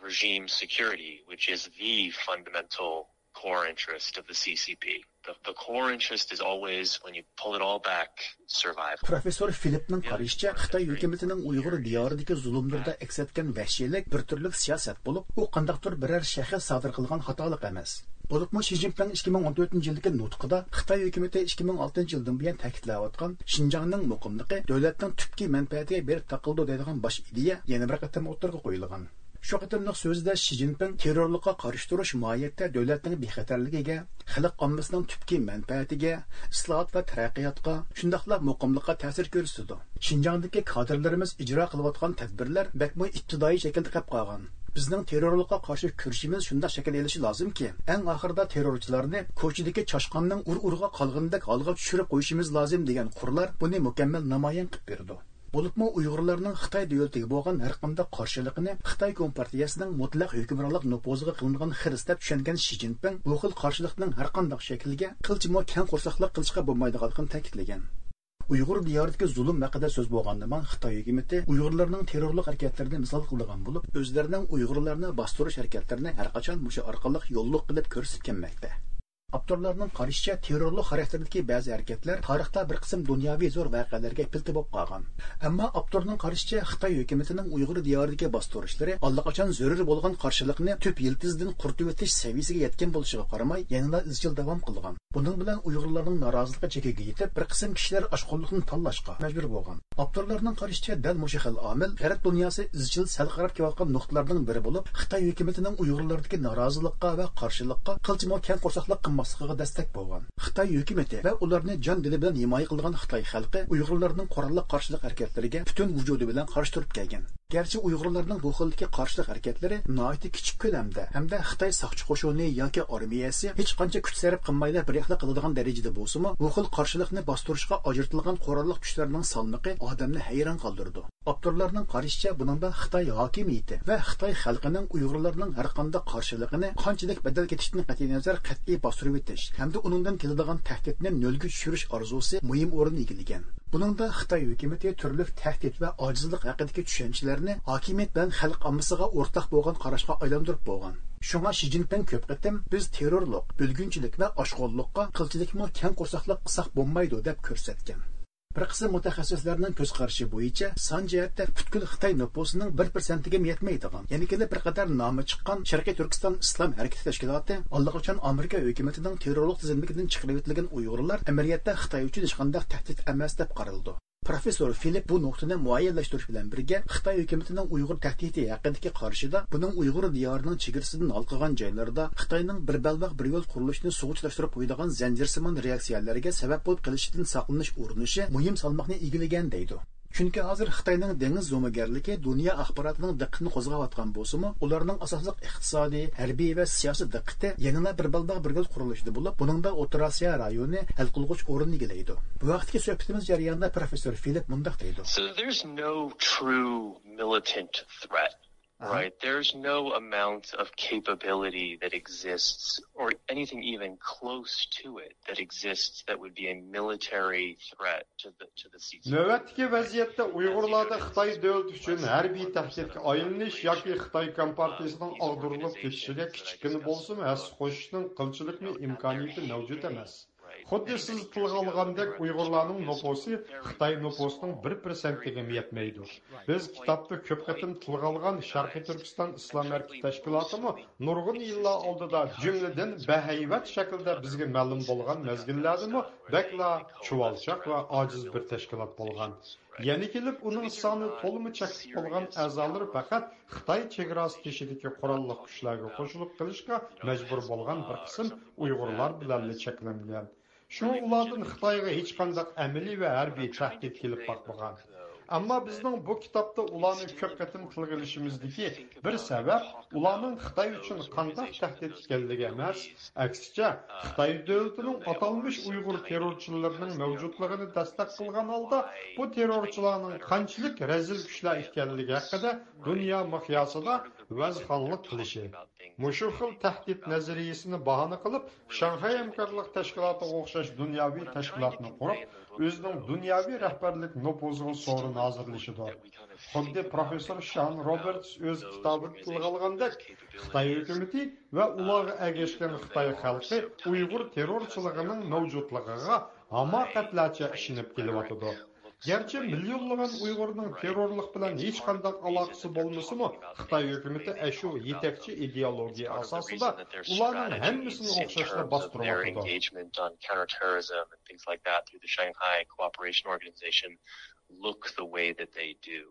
Regime security, which is the fundamental core interest of the C C P. The, the core interest is always, when you pull it all back, survival. پروفېسسور فىلىپنىڭ قارىشىچە، خىتاي ھۆكۈمىتىنىڭ ئۇيغۇر دىيارىدىكى زۇلۇملىرىدا ئەكس ئەتكەن ۋەھشىيلىك بىر تۈرلۈك سىياسەت بولۇپ، ئۇ قانداقتۇر بىرەر شەخس سادىر قىلغان خاتالىق ئەمەس. بولۇپمۇ شى جىنپىڭ ئىككى مىڭ ئون تۆتىنچى يىلدىكى نۇتقىدا خىتاي ھۆكۈمىتى ئىككى مىڭ ئالتىنچى يىلدىن بۇيان تەكىتلەۋاتقان شىنجاڭنىڭ مۇقىملىقى دۆلەتنىڭ تۈپكى مەنپەئەتىگە بېرىپ تاقىلىدۇ دەيدىغان باش ئىدىيە يەنە بىر قېتىم ئوتتۇرىغا قويۇلغان. شۇ قېتىملىق سۆزىدە شى جىنپىڭ تېررورلۇققا قارشى تۇرۇش ماھىيەتتە دۆلەتنىڭ بىخەتەرلىكىگە، خەلق ئاممىسىنىڭ تۈپكى مەنپەئەتىگە، ئىسلاھات ۋە تەرەققىياتقا، شۇنداقلا مۇقىملىققا تەسىر كۆرسىتىدۇ. شىنجاڭدىكى كادىرلىرىمىز ئىجرا قىلىۋاتقان تەدبىرلەر بەكمۇ ئىپتىدائىي شەكىلدە قېلىپ قالغان. بىزنىڭ تېررورلۇققا قارشى كۈرىشىمىز شۇنداق شەكىل ئېلىشى لازىمكى، ئەڭ ئاخىرىدا تېررورچىلارنى كوچىدىكى چاشقاننىڭ ئۇر-ئۇرىغا قالغىنىدەك ھالغا چۈشۈرۈپ قويۇشىمىز لازىم دېگەن قۇرلار بۇنى مۇكەممەل نامايان قىلىپ بېرىدۇ. بولۇپمۇ ئۇيغۇرلارنىڭ خىتاي دۆلىتىگە بولغان ھەرقانداق قارشىلىقىنى خىتاي كومپارتىيەسىنىڭ مۇتلەق ھۆكۈمرانلىق نوپۇزىغا قىلىنغان خىرىس دەپ چۈشەنگەن شى جىنپىڭ بۇ خىل قارشىلىقنىڭ ھەرقانداق شەكلىگە قىلچىمۇ كەڭ قورساقلىق قىلىشقا بولمايدىغانلىقىنى تەكىتلىگەن. ئۇيغۇر دىيارىدىكى زۇلۇم ھەققىدە سۆز بولغاندىمۇ، خىتاي ھۆكۈمىتى ئۇيغۇرلارنىڭ تېررورلۇق ھەرىكەتلىرىنى مىسال قىلىدىغان بولۇپ، ئۆزلىرىنىڭ ئۇيغۇرلارنى باستۇرۇش ھەرىكەتلىرىنى ھەرقاچان مۇشۇ ئارقىلىق يوللۇق قىلىپ كۆرسىتىپ كەلمەكتە. ئاپتورلارنىڭ قارىشىچە، تېررورلۇق خاراكتېرىدىكى بەزى ھەرىكەتلەر تارىختا بىر قىسىم دۇنياۋى زور ۋەقەلەرگە پىلتە بولۇپ قالغان. ئەمما ئاپتورنىڭ قارىشىچە، خىتاي ھۆكۈمىتىنىڭ ئۇيغۇر دىيارىدىكى باستۇرۇشلىرى ئاللىقاچان زۆرۈر بولغان قارشىلىقنى تۈپ يىلتىزىدىن قۇرۇتۇۋېتىش سەۋىيىسىگە يەتكەن بولۇشىغا قارىماي، يەنىلا ئىزچىل داۋام قىلغان. بۇنىڭ بىلەن ئۇيغۇرلارنىڭ نارازىلىقى چېكىگە يېتىپ، بىر قىسىم كىشىلەر ئاشقۇنلۇقنى تاللاشقا مەجبۇر بولغان. ئاپتورلارنىڭ قارىشىچە، دەل مۇشۇ خىل ئامىل غەرب دۇنياسى ئىزچىل سەل قاراپ كېلىۋاتقان نۇقتىلارنىڭ بىرى بولۇپ، خىتاي ھۆكۈمىتىنىڭ ئۇيغۇرلاردىكى نارازىلىققا ۋە قارشىلىققا قىلچىمۇ كەڭ قورساقلىق قىلماسلىقىغا دەستەك بولغان. خىتاي ھۆكۈمىتى ۋە ئۇلارنى جان دىلى بىلەن ھىمايە قىلىدىغان خىتاي خەلقى ئۇيغۇرلارنىڭ قوراللىق قارشىلىق ھەرىكەتلىرىگە پۈتۈن ۋۇجۇدى بىلەن قارشى تۇرۇپ كەلگەن. گەرچە ئۇيغۇرلارنىڭ بۇ خىلدىكى قارشىلىق ھەرىكەتلىرى ناھايىتى كىچىك كۆلەمدە ھەمدە خىتاي ساقچى قوشۇنى ياكى ئارمىيەسى ھېچقانچە كۈچ سەرپ قىلمايلا بىر ئىخلا قىلىدىغان دەرىجىدە بولسىمۇ، بۇ خىل قارشىلىقنى باستۇرۇشقا ئاجرىتىلغان قوراللىق كۈچلەرنىڭ سالمىقى ئادەمنى ھەيران قالدۇرىدۇ. ئاپتورلارنىڭ قارىشىچە، بۇنىڭدا خىتاي ھاكىمىيىتى ۋە خىتاي خەلقىنىڭ ئۇيغۇرلارنىڭ ھەرقانداق قارشىلىقىنى قانچىلىك بەدەل كېتىشتىن قەتئىينەزەر قەتئىي باستۇرۇۋېتىش ھەمدە ئۇنىڭدىن كېلىدىغان تەھدىتنى نۆلگە چۈشۈرۈش ئارزۇسى مۇھىم ئورۇن ئىگىلىگەن. بۇنىڭدا خىتاي ھۆكۈمىتى تۈرلۈك تەھدىت ۋە ئاجىزلىق ھەققىدىكى چۈشەنچىلەرنى ھاكىمىيەت بىلەن خەلق ئاممىسىغا ئورتاق بولغان قاراشقا ئايلاندۇرۇپ بولغان. شۇڭا شى جىنپىڭ كۆپ قېتىم، بىز تېررورلۇق، بۆلگۈنچىلىك ۋە ئاشقۇنلۇققا قىلچىلىكمۇ كەڭ قورساقلىق قىلساق بولمايدۇ، دەپ كۆرسەتكەن. بىر قىسىم مۇتەخەسسىسلەرنىڭ كۆز قارىشى بويىچە، سان جەھەتتە پۈتكۈل خىتاي نوپۇسىنىڭ بىر پىرسەنتىگىمۇ يەتمەيدىغان، يەنە كېلىپ بىر قەدەر نامى چىققان شەرقىي تۈركىستان ئىسلام ھەرىكىتى تەشكىلاتى ئاللىقاچان ئامېرىكا ھۆكۈمىتىنىڭ تېررورلۇق تىزىملىكىدىن چىقىرىۋېتىلگەن ئۇيغۇرلار ئەمەلىيەتتە خىتاي ئۈچۈن ھېچقانداق تەھدىت ئەمەس دەپ قارىلىدۇ. پروفېسسور فىلىپ بۇ نۇقتىنى مۇئەييەنلەشتۈرۈش بىلەن بىرگە، خىتاي ھۆكۈمىتىنىڭ ئۇيغۇر تەھدىتى ھەققىدىكى قارىشىدا، بۇنىڭ ئۇيغۇر دىيارىنىڭ چېگرىسىدىن ھالقىغان جايلىرىدا خىتاينىڭ بىر بەلباغ بىر يول قۇرۇلۇشىنى سۇغا چىلاشتۇرۇپ قويىدىغان زەنجىرسىمان رېئاكسىيەلەرگە سەۋەب بولۇپ قېلىشىدىن ساقلىنىش ئۇرۇنۇشى مۇھىم سالماقنى ئىگىلىگەن، دەيدۇ. چۈنكى ھازىر خىتاينىڭ دېڭىز زومىگەرلىكى دۇنيا ئاخباراتىنىڭ دىققىتىنى قوزغاۋاتقان بولسىمۇ، ئۇلارنىڭ ئاساسلىق ئىقتىسادىي، ھەربىي ۋە سىياسىي دىققىتى يەنىلا بىر بەلباغ بىر يول قۇرۇلۇشىدا بولۇپ، بۇنىڭدا ئوتتۇرا ئاسىيا رايونى ھەل قىلغۇچ ئورۇننى ئىگىلەيدۇ. بۇ ھەقتىكى سۆھبىتىمىز جەريانىدا پروفېسسور فىلىپ مۇنداق دەيدۇ. So there's no true militant threat. Right. There's no amount of capability that exists, or anything even close to it, that exists that would be a military threat to the, to the C C P. نۆۋەتتىكى ۋەزىيەتتە ئۇيغۇرلاردا خىتاي دۆلىتى ئۈچۈن ھەربىي تەھدىتكە ئايلىنىش ياكى خىتاي كومپارتىيىسىنىڭ ئاغدۇرۇلۇپ كېتىشىگە كىچىككىنە بولسىمۇ ھەسسە قوشۇشنىڭ قىلچىلىكمۇ ئىمكانىيىتى مەۋجۇت ئەمەس. خۇددى سىز تىلغا ئالغاندەك، ئۇيغۇرلارنىڭ نوپۇسى خىتاي نوپۇسىنىڭ بىر پىرسەنتىگىمۇ يەتمەيدۇ. بىز كىتابتا كۆپ قېتىم تىلغا ئالغان شەرقىي تۈركىستان ئىسلام ھەرىكىتى تەشكىلاتىمۇ نۇرغۇن يىللار ئالدىدا، جۈملىدىن بەھەيۋەت شەكىلدە بىزگە مەلۇم بولغان مەزگىللەردىمۇ بەكلا چۇۋالچاق ۋە ئاجىز بىر تەشكىلات بولغان. يەنە كېلىپ ئۇنىڭ سانى تولىمۇ چەكلىك بولغان ئەزالىرى پەقەت خىتاي چېگراسى تېشىدىكى قوراللىق كۈچلەرگە قوشۇلۇپ قېلىشقا مەجبۇر بولغان بىر قىسىم ئۇيغۇرلار بىلەنلا چەكلەنگەن. شۇڭا ئۇلاردىن خىتايغا ھېچقانداق ئەمەلىي ۋە ھەربىي تەھدىت كېلىپ باقمىغان. ئەمما بىزنىڭ بۇ كىتابتا ئۇلارنى كۆپ قېتىم تىلغا ئېلىشىمىزدىكى بىر سەۋەب ئۇلارنىڭ خىتاي ئۈچۈن قانداق تەھدىت ئىكەنلىكى ئەمەس، ئەكسىچە، خىتاي دۆلىتىنىڭ ئاتالمىش ئۇيغۇر تېررورچىلىرىنىڭ مەۋجۇتلۇقىنى دەستەك قىلغان ھالدا بۇ تېررورچىلارنىڭ قانچىلىك رەزىل كۈچلەر ئىكەنلىكى ھەققىدە دۇنيا مىقياسىدا ۋەزخانلىق قىلىشى. مۇشۇ خىل تەھدىت نەزەرىيىسىنى باھانە قىلىپ، شاڭخەي ھەمكارلىق تەشكىلاتىغا ئوخشاش دۇنياۋى تەشكىلاتنى قۇرۇپ، ئۆزىنىڭ دۇنياۋى رەھبەرلىك نوپۇزىغا سورۇن ھازىرلىشىدۇ. خۇددى پروفېسسور شان روبېرتس ئۆز كىتابىدا تىلغا ئالغاندەك، خىتاي ھۆكۈمىتى ۋە ئۇلارغا ئەگەشكەن خىتاي خەلقى ئۇيغۇر تېررورچىلىقىنىڭ مەۋجۇتلۇقىغا ھاماقەتلەرچە ئىشىنىپ كېلىۋاتىدۇ. گەرچە مىليونلىغان ئۇيغۇرنىڭ تېررورلۇق بىلەن ھېچقانداق ئالاقىسى بولمىسىمۇ، خىتاي ھۆكۈمىتى ئەشۇ يېتەكچى ئىدېئولوگىيە ئاساسىدا ئۇلارنىڭ ھەممىسىنى ئوخشاشلا باستۇرۇۋاتىدۇ. Engagement on counterterrorism and things like that through the Shanghai Cooperation Organization look the way that they do.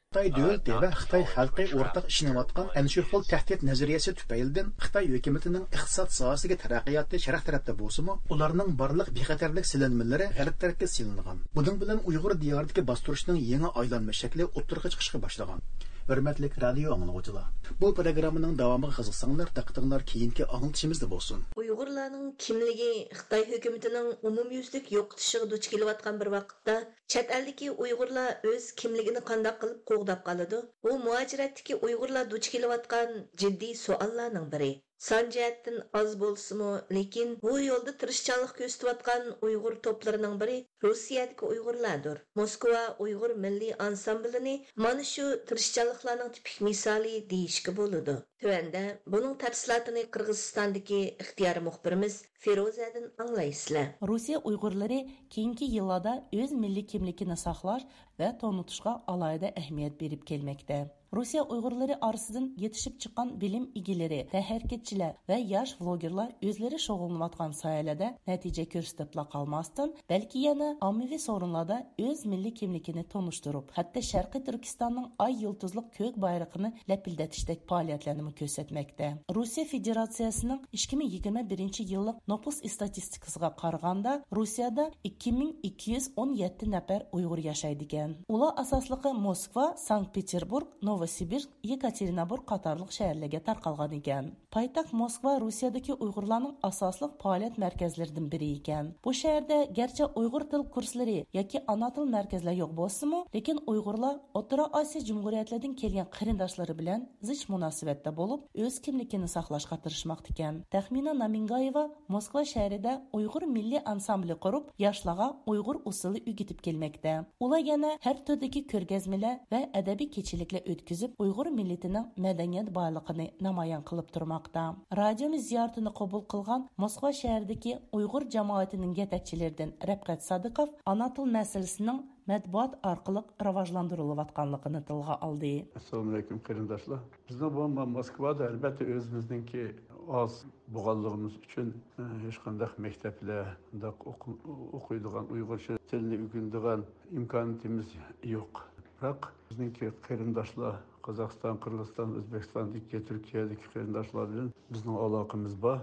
خىتاي دۆلىتى ۋە خىتاي خەلقى ئورتاق ئىشىنىۋاتقان ئەنە شۇ خىل تەھدىت نەزەرىيەسى تۈپەيلىدىن خىتاي ھۆكۈمىتىنىڭ ئىقتىساد ساھەسىگە تەرەققىياتى شەرق تەرەپتە بولسىمۇ، ئۇلارنىڭ بارلىق بىخەتەرلىك سېلىنمىلىرى غەرب تەرەپكە سېلىنغان. بۇنىڭ بىلەن ئۇيغۇر دىيارىدىكى باستۇرۇشنىڭ يېڭى ئايلانما شەكلى ئوتتۇرىغا چىقىشقا باشلىغان. ھۆرمەتلىك رادىيو ئاڭلىغۇچىلار، بۇ پروگراممىنىڭ داۋامىغا قىزىقساڭلار، دىققىتىڭلار كېيىنكى ئاڭلىتىشىمىزدا بولسۇن. ئۇيغۇرلارنىڭ كىملىكى خىتاي ھۆكۈمىتىنىڭ ئومۇميۈزلۈك يوقىتىشىغا دۇچ كېلىۋاتقان بىر ۋاقىتتا، چەت ئەلدىكى ئۇيغۇرلار ئۆز كىملىكىنى قانداق قىلىپ قوغداپ قالىدۇ؟ بۇ مۇھاجىرەتتىكى ئۇيغۇرلار دۇچ كېلىۋاتقان جىددىي سوئاللارنىڭ بىرى. سان جەھەتتىن ئاز بولسىمۇ، لېكىن بۇ يولدا تىرىشچانلىق كۆرسىتىۋاتقان ئۇيغۇر توپلىرىنىڭ بىرى روسىيەدىكى ئۇيغۇرلاردۇر. موسكۋا ئۇيغۇر مىللىي ئانسامبىلىنى مانا شۇ تىرىشچانلىقلارنىڭ تىپىك مىسالى دېيىشكە بولىدۇ. تۆۋەندە بۇنىڭ تەپسىلاتىنى قىرغىزىستاندىكى ئىختىيارىي مۇخبىرىمىز فىرۇزەدىن ئاڭلايسىلەر. روسىيە ئۇيغۇرلىرى كېيىنكى يىللاردا ئۆز مىللىي كىملىكىنى ساقلاش ۋە تونۇتۇشقا ئالاھىدە ئەھمىيەت بېرىپ كەلمەكتە. روسىيە ئۇيغۇرلىرى ئارىسىدىن يېتىشىپ چىققان بىلىم ئىگىلىرى، تەنھەرىكەتچىلەر ۋە ياش ۋلوگېرلار ئۆزلىرى شۇغۇللىنىۋاتقان ساھەلەردە نەتىجە كۆرسىتىپلا قالماستىن، بەلكى يەنە ئاممىۋى سورۇنلاردا ئۆز مىللىي كىملىكىنى تونۇشتۇرۇپ، ھەتتا شەرقىي تۈركىستاننىڭ ئاي يۇلتۇزلۇق كۆك بايرىقىنى لەپىلدىتىشتەك پائالىيەتلەرنىمۇ كۆرسەتمەكتە. روسىيە فېدېراتسىيەسىنىڭ ئىككى مىڭ يىگىرمە بىرىنچى يىللىق نوپۇس ئىستاتىستىكىسىغا قارىغاندا، روسىيەدە ئىككى مىڭ ئىككى يۈز ئون يەتتە نەپەر ئۇيغۇر ياشايدىكەن. ئۇلار ئاساسلىقى موسكۋا، سانكت پېتېربۇرگ، نوۋوسىبىرسك، يېكاتېرىنبۇرگ قاتارلىق شەھەرلەرگە تارقالغان ئىكەن. پايتەخت موسكۋا روسىيەدىكى ئۇيغۇرلارنىڭ ئاساسلىق پائالىيەت مەركەزلىرىدىن بىرى ئىكەن. بۇ شەھەردە گەرچە ئۇيغۇر تىل كۇرسلىرى ياكى ئانا تىل مەركەزلەر يوق بولسىمۇ، لېكىن ئۇيغۇرلار ئوتتۇرا ئاسىيا جۇمھۇرىيەتلىرىدىن كەلگەن قېرىنداشلىرى بىلەن زىچ مۇناسىۋەتتە بولۇپ، ئۆز كىملىكىنى ساقلاشقا تىرىشماقتىكەن. تەخمىنا نامىنگايېۋا موسكۋا شەھىرىدە ئۇيغۇر مىللىي ئانسامبىلى قۇرۇپ، ياشلارغا ئۇيغۇر ئۇسسۇلى ئۆگىتىپ كەلمەكتە. ئۇلار يەنە ھەر تۈردىكى كۆرگەزمىلەر ۋە ئەدەبىي كېچىلىكلەر ئۆتكۈزۈپ، ئۇيغۇر مىللىتىنىڭ مەدەنىيەت بايلىقىنى نامايان قىلىپ تۇرماقتا. رادىيومىز زىيارىتىنى قوبۇل قىلغان موسكۋا شەھىرىدىكى ئۇيغۇر جامائىتىنىڭ يېتەكچىلىرىدىن رەپقەت سادىقوف ئانا تىل مەسىلىسىنىڭ مەتبۇئات ئارقىلىق راۋاجلاندۇرۇلۇۋاتقانلىقىنى تىلغا ئالدى. ئەسسالامۇئەلەيكۇم، قېرىنداشلار. بىزنىڭ بۇ ما-، موسكۋادا، ئەلبەتتە، ئۆزىمىزنىڭكى ئاز بولغانلىقىمىز ئۈچۈن، ئە، ھېچقانداق مەكتەپلەر، بۇنداق ئوقۇ-، ئوقۇيدىغان، ئۇيغۇرچە تىلنى ئۆگىنىدىغان ئىمكانىيىتىمىز يوق. بىراق، بىزنىڭكى قېرىنداشلار، قازاقىستان، قىرغىزىستان، ئۆزبېكىستاندىكى، تۈركىيەدىكى قېرىنداشلار بىلەن بىزنىڭ ئالاقىمىز بار.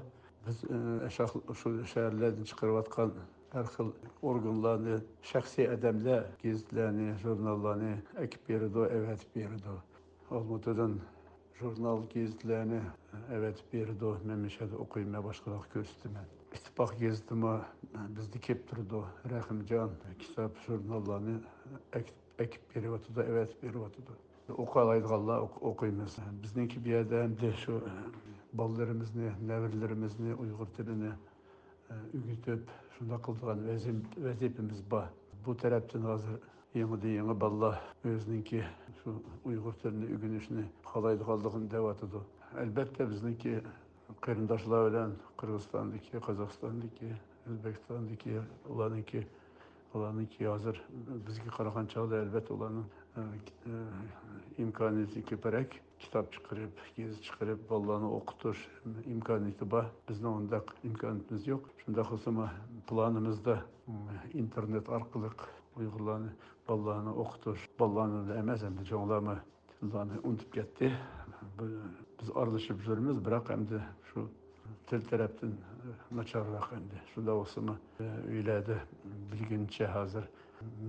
بىز، ئە، شاخ-، شۇ شەھەرلەردىن چىقىرىۋاتقان ھەر خىل ئورگانلارنى شەخسىي ئادەملەر گېزىتلەرنى، ژۇرناللارنى ئەكىپ بېرىدۇ، ئەۋەتىپ بېرىدۇ. ئالمۇتىدىن ژۇرنال، گېزىتلەرنى ئەۋەتىپ بېرىدۇ. مەن مۇشۇ يەردە ئوقۇيمەن، باشقىلارغا كۆرسىتىمەن. ئىتتىپاق گېزىتىمۇ بىزدە كېلىپ تۇرىدۇ. رەھىمجان كىتاب، ژۇرناللارنى ئەكىپ، ئەكىپ بېرىۋاتىدۇ، ئەۋەتىپ بېرىۋاتىدۇ. ئوقۇيالايدىغانلار ئوق-، ئوقۇيمىز. بىزنىڭكى بۇ يەردە ئەمدى شۇ بالىلىرىمىزنى، نەۋرىلىرىمىزنى ئۇيغۇر تىلىنى ئۆگىتىپ، شۇنداق قىلىدىغان ۋەزىپ-، ۋەزىپىمىز بار. بۇ تەرەپتىن ھازىر يېڭىدىن يېڭى بالىلار ئۆزىنىڭكى شۇ ئۇيغۇر تىلىنى ئۆگىنىشنى خالايدىغانلىقىنى دەۋاتىدۇ. ئەلبەتتە، بىزنىڭكى قېرىنداشلار بىلەن قىرغىزىستاندىكى، قازاقىستاندىكى، ئۆزبېكىستاندىكى، ئۇلارنىڭكى، ئۇلارنىڭكى ھازىر بىزگە قارىغان چاغدا، ئەلبەتتە، ئۇلارنىڭ، ئە، ئە، ئىمكانىيىتى كۆپرەك. كىتاب چىقىرىپ، گېزىت چىقىرىپ، بالىلارنى ئوقۇتۇش ئىمكانىيىتى بار. بىزنىڭ ئۇنداق ئىمكانىيىتىمىز يوق. شۇنداق بولسىمۇ، پىلانىمىزدا، ئىم، ئىنتېرنېت ئارقىلىق ئۇيغۇرلارنى، بالىلارنى ئوقۇتۇش، بالىلارنى ئەمەس، ئەمدى چوڭلارمۇ تىللارنى ئۇنتۇپ كەتتى. بىز ئارىلىشىپ يۈرىمىز، بىراق ئەمدى شۇ تىل تەرەپتىن ناچارراق ئەمدى. شۇنداق بولسىمۇ، ئۆيلەردە بىلگىنىچە ھازىر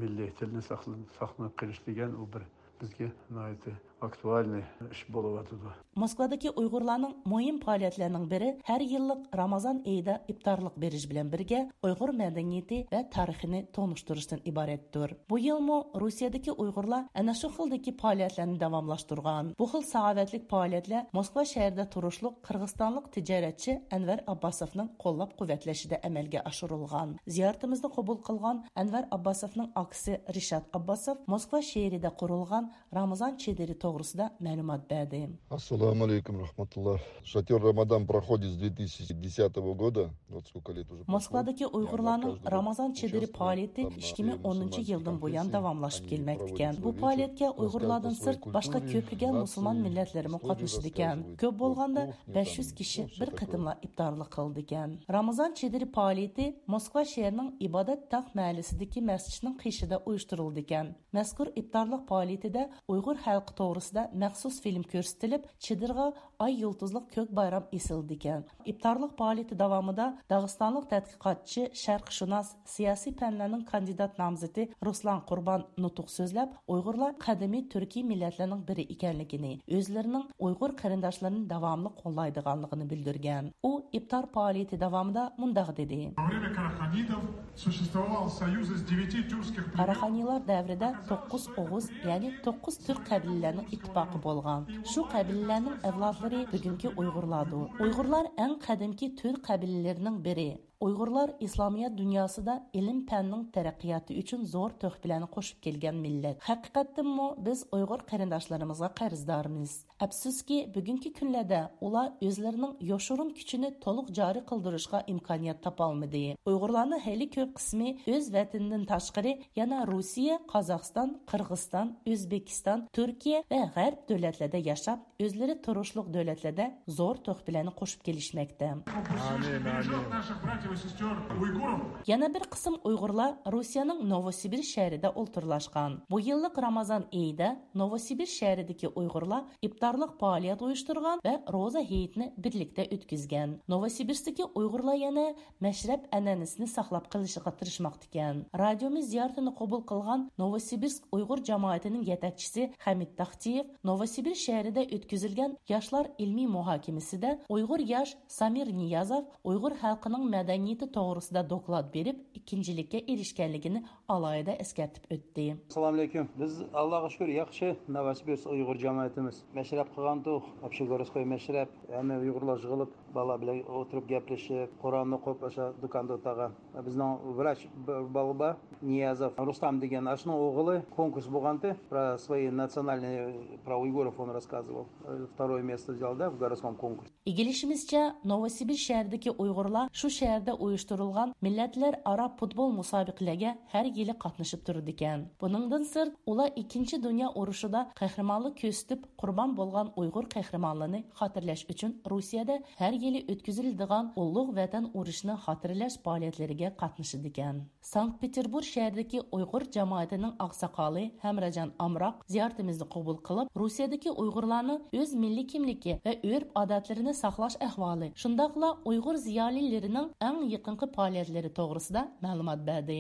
مىللىي تىلنى ساقلا-، ساقلىنىپ قېلىش دېگەن ئۇ بىر بىزگە ناھايىتى ئاكتۇئالنىي ئىش بولۇۋاتىدۇ. موسكۋادىكى ئۇيغۇرلارنىڭ مۇھىم پائالىيەتلىرىنىڭ بىرى ھەر يىللىق رامازان ئېيىدا ئىپتارلىق بېرىش بىلەن بىرگە ئۇيغۇر مەدەنىيىتى ۋە تارىخىنى تونۇشتۇرۇشتىن ئىبارەتتۇر. بۇ يىلمۇ روسىيەدىكى ئۇيغۇرلار ئەنە شۇ خىلدىكى پائالىيەتلەرنى داۋاملاشتۇرغان. بۇ خىل ساخاۋەتلىك پائالىيەتلەر موسكۋا شەھىرىدە تۇرۇشلۇق قىرغىزىستانلىق تىجارەتچى ئەنۋەر ئابباسوفنىڭ قوللاپ قۇۋۋەتلىشىدە ئەمەلگە ئاشۇرۇلغان. زىيارىتىمىزنى قوبۇل قىلغان ئەنۋەر ئابباسوفنىڭ ئاكىسى رىشات ئابباسوف موسكۋا شەھىرىدە قۇرۇلغان رامىزان چېدىرى توغرىسىدا مەلۇمات بەردى. Ассаламу алейкум, рахматуллах. Шатер Рамадан проходит с две тысячи десятого года. Вот сколько лет уже прошло. موسكۋادىكى ئۇيغۇرلارنىڭ رامىزان چېدىرى پائالىيىتى ئىككى مىڭ ئونىنچى يىلدىن بۇيان داۋاملىشىپ كەلمەكتىكەن. بۇ پائالىيەتكە ئۇيغۇرلاردىن سىرت باشقا كۆپلىگەن مۇسۇلمان مىللەتلىرىمۇ قاتنىشىدىكەن. كۆپ بولغاندا بەش يۈز كىشى بىر قېتىملا ئىپتارلىق قىلىدىكەن. رامىزان چېدىرى پائالىيىتى موسكۋا شەھىرىنىڭ ئىبادەت تاغ مەھەللىسىدىكى مەسچىتنىڭ قېشىدا ئۇيۇشتۇرۇلىدىكەن. مەزكۇر ئىپتارلىق پائالىيىتىدە ئۇيغۇر خەلقى توغرىسىدا مەخسۇس فىلىم كۆرسىتىلىپ، چېدىرغا ئاي يۇلتۇزلۇق كۆك بايرام ئېسىلىدىكەن. ئىپتارلىق پائالىيىتى داۋامىدا داغىستانلىق تەتقىقاتچى، شەرقشۇناس، سىياسىي پەنلەرنىڭ كاندىدات نامزىتى رۇسلان قۇربان نۇتۇق سۆزلەپ، ئۇيغۇرلار قەدىمىي تۈركىي مىللەتلەرنىڭ بىرى ئىكەنلىكىنى، ئۆزلىرىنىڭ ئۇيغۇر قېرىنداشلىرىنى داۋاملىق قوللايدىغانلىقىنى بىلدۈرگەن. ئۇ ئىپتار پائالىيىتى داۋامىدا مۇنداق دېدى. Во время караханидов существовал союз из девяти тюркских племен. قاراخانىيلار دەۋرىدە توققۇز ئوغۇز، يەنى توققۇز تۈرك قەبىلىلەرنىڭ ئىتتىپاقى بولغان. شۇ قەبىلىلەرنىڭ ئەۋلادلىرى بۈگۈنكى ئۇيغۇرلاردۇر. ئۇيغۇرلار ئەڭ قەدىمكى تۈرك قەبىلىلىرىنىڭ بىرى. ئۇيغۇرلار ئىسلامىيەت دۇنياسىدا ئىلىم-پەننىڭ تەرەققىياتى ئۈچۈن زور تۆھپىلەرنى قوشۇپ كەلگەن مىللەت. ھەقىقەتتىنمۇ بىز ئۇيغۇر قېرىنداشلىرىمىزغا قەرزدارمىز. ئەپسۇسكى، بۈگۈنكى كۈنلەردە ئۇلار ئۆزلىرىنىڭ يوشۇرۇن كۈچىنى تولۇق جارى قىلدۇرۇشقا ئىمكانىيەت تاپالمىدى. ئۇيغۇرلارنىڭ خېلى كۆپ قىسمى ئۆز ۋەتىنىدىن تاشقىرى يەنە روسىيە، قازاقىستان، قىرغىزىستان، ئۆزبېكىستان، تۈركىيە ۋە غەرب دۆلەتلەردە ياشاپ، ئۆزلىرى تۇرۇشلۇق دۆلەتلەردە زور تۆھپىلەرنى قوشۇپ كېلىشمەكتە. Пусть бережёт наших братьев и сестёр уйгуров. يەنە بىر قىسىم ئۇيغۇرلار روسىيەنىڭ نوۋوسىبىرسك شەھىرىدە ئولتۇرلاشقان. بۇ يىللىق رامازان ئېيىدا نوۋوسىبىرسك شەھىرىدىكى ئۇيغۇرلار ئىپتارلىق پائالىيەت ئۇيۇشتۇرغان ۋە روزا ھېيتنى بىرلىكتە ئۆتكۈزگەن. نوۋوسىبىرسكتىكى ئۇيغۇرلار يەنە مەشرەپ ئەنئەنىسىنى ساقلاپ قېلىشىغا تىرىشماقتىكەن. رادىيومىز زىيارىتىنى قوبۇل قىلغان نوۋوسىبىرسك ئۇيغۇر جامائىتىنىڭ يېتەكچىسى خەمىت تاختىيېۋ نوۋوسىبىرسك شەھىرىدە ئۆتكۈزۈلگەن ياشلار ئىلمىي مۇھاكىمىسىدە ئۇيغۇر ياش سامىر نىيازوف ئۇيغۇر خەلقىنىڭ مەدەنىيىتى توغرىسىدا دوكلات بېرىپ، ئىككىنچىلىككە ئېرىشكەنلىكىنى ئالاھىدە ئەسكەرتىپ ئۆتتى. ئەسسالامۇئەلەيكۇم. بىز، ئاللاغا شۈكۈر، ياخشى. نوۋوسىبىرسك ئۇيغۇر جامائىتىمىز. مەشرەپ قىلغانتۇق، ئوبشېگورودسكوي مەشرەپ. ھەممە ئۇيغۇرلار يىغىلىپ، بالىلار بىلەن ئولتۇرۇپ گەپلىشىپ، قۇرئاننى ئوقۇپ، ئاشۇ دۇكاندا ئولتۇرغان. بىزنىڭ ۋراچ بىر بالا بار، نىيازوف رۇستام دېگەن، ئاشۇنىڭ ئوغلى كونكۇرس بولغانتى، про свои национальные, про уйгуров он рассказывал. Второе место взял, да, в городском конкурсе. ئىگىلىشىمىزچە، نوۋوسىبىرسك شەھىرىدىكى ئۇيغۇرلار شۇ شەھەردە ئۇيۇشتۇرۇلغان مىللەتلەر ئارا پۇتبول مۇسابىقىلىرىگە ھەر يىلى قاتنىشىپ تۇرىدىكەن. بۇنىڭدىن سىرت، ئۇلار ئىككىنچى دۇنيا ئۇرۇشىدا قەھرىمانلىق كۆرسىتىپ، قۇربان بولغان ئۇيغۇر قەھرىمانلىرىنى خاتىرىلەش ئۈچۈن روسىيەدە ھەر يىلى ئۆتكۈزۈلىدىغان ئۇلۇغ ۋەتەن ئۇرۇشىنى خاتىرىلەش پائالىيەتلىرىگە قاتنىشىدىكەن. سانكت پېتېربۇرگ شەھىرىدىكى ئۇيغۇر جامائىتىنىڭ ئاقساقالى ھەمراجان ئامراق زىيارىتىمىزنى قوبۇل قىلىپ، روسىيەدىكى ئۇيغۇرلارنىڭ ئۆز مىللىي كىملىكى ۋە ئۆرپ-ئادەتلىرىنى ساقلاش ئەھۋالى، شۇنداقلا ئۇيغۇر زىيالىيلىرىنىڭ ئەڭ يېقىنقى پائالىيەتلىرى توغرىسىدا مەلۇمات بەردى.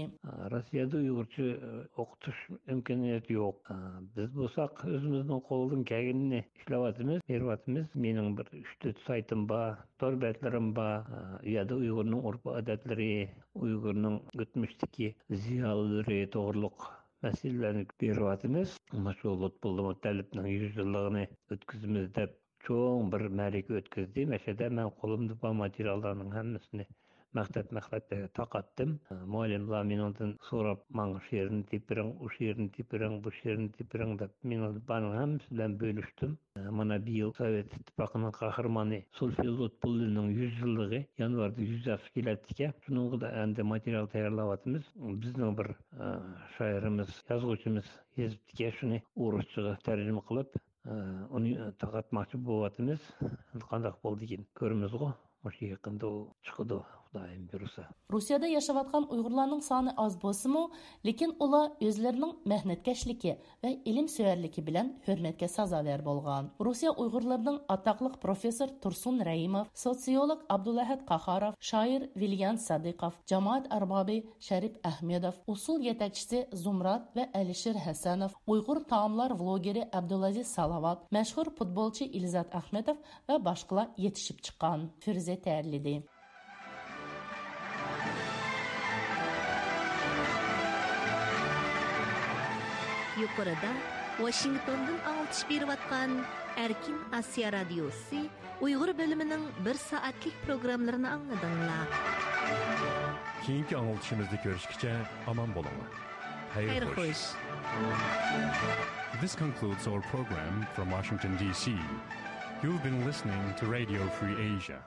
روسىيەدە ئۇيغۇرچە ئوقۇتۇش ئىمكانىيىتى يوق. بىز بولساق ئۆزىمىزنىڭ قولىدىن كەلگىنىنى ئىشلەۋاتىمىز، بېرىۋاتىمىز. مېنىڭ بىر ئۈچ تۆت سايتىم بار، تور بەتلىرىم بار. ئۇ يەردە ئۇيغۇرنىڭ ئۆرپ-ئادەتلىرى، ئۇيغۇرنىڭ ئۆتمۈشتىكى زىيالىيلىرى توغرۇلۇق مەسىلىلەرنى بېرىۋاتىمىز. مۇشۇ لۇتپۇللا مۇتەللىپنىڭ يۈز يىللىقىنى ئۆتكۈزىمىز دەپ چوڭ بىر مەرىكە ئۆتكۈزدى. مەشەدە مەن قولۇمدا بار ماتېرىياللارنىڭ ھەممىسىنى مەقتەپ مەقتەپلەرگە تارقاتتىم. مۇئەللىملار مېنىڭدىن سوراپ، ماڭا شۇ يېرىنى تېپىۋېرىڭ، ئۇ شۇ يېرىنى تېپىۋېرىڭ، بۇ شۇ يېرىنى تېپىۋېرىڭ دەپ، مېنىڭ بارنىڭ ھەممىسى بىلەن بۆلۈشتۈم. مانا بىيىل سوۋېت ئىتتىپاقىنىڭ قەھرىمانى سولفېي لۇتپۇللىنىڭ يۈز يىللىقى يانۋاردا يۈز ياشقا كېلەتتىكەن. شۇنىڭغا ئەمدى ماتېرىيال تەييارلاۋاتىمىز. بىزنىڭ بىر، ئە، شائىرىمىز، يازغۇچىمىز يېزىپتىكەن، شۇنى ئورۇسچىغا تەرجىمە قىلىپ، ئۇنى تارقاتماقچى بولۇۋاتىمىز. قانداق بولىدىكىن كۆرىمىزغۇ. مۇشۇ يېقىندا ئۇ چىقىدۇ، خۇدايىم بۇيرۇسا. روسىيەدە ياشاۋاتقان ئۇيغۇرلارنىڭ سانى ئاز بولسىمۇ، لېكىن ئۇلار ئۆزلىرىنىڭ مەھنەتكەشلىكى ۋە ئىلىمسۆيەرلىكى بىلەن ھۆرمەتكە سازاۋەر بولغان. روسىيە ئۇيغۇرلىرىنىڭ ئاتاقلىق پروفېسسور تۇرسۇن رەھىموف، سوتسىيولوگ ئابدۇلئەھەد قاھاروف، شائىر ۋىليان سادىقوف، جامائەت ئەربابى شەرىپ ئەخمېدوف، ئۇسسۇل يېتەكچىسى زۇمرات ۋە ئەلىشىر ھەسەنوف، ئۇيغۇر تائاملار ۋلوگېرى ئابدۇلئەزىز سالاۋات، مەشھۇر پۇتبولچى ئىلزات ئەخمېتوف ۋە باشقىلار يېتىشىپ چىققان. فىرۇزە تەييارلىدى. يۇقىرىدا ۋاشىنگتوندىن ئاڭلىتىش بېرىۋاتقان ئەركىن ئاسىيا رادىيوسى ئۇيغۇر بۆلۈمىنىڭ بىر سائەتلىك پروگراممىلىرىنى ئاڭلىدىڭلار. كېيىنكى ئاڭلىتىشىمىزدا كۆرۈشكىچە ئامان بولۇڭلار. خەير خەير خوش. خوش. This concludes our program from Washington, D C. You've been listening to Radio Free Asia.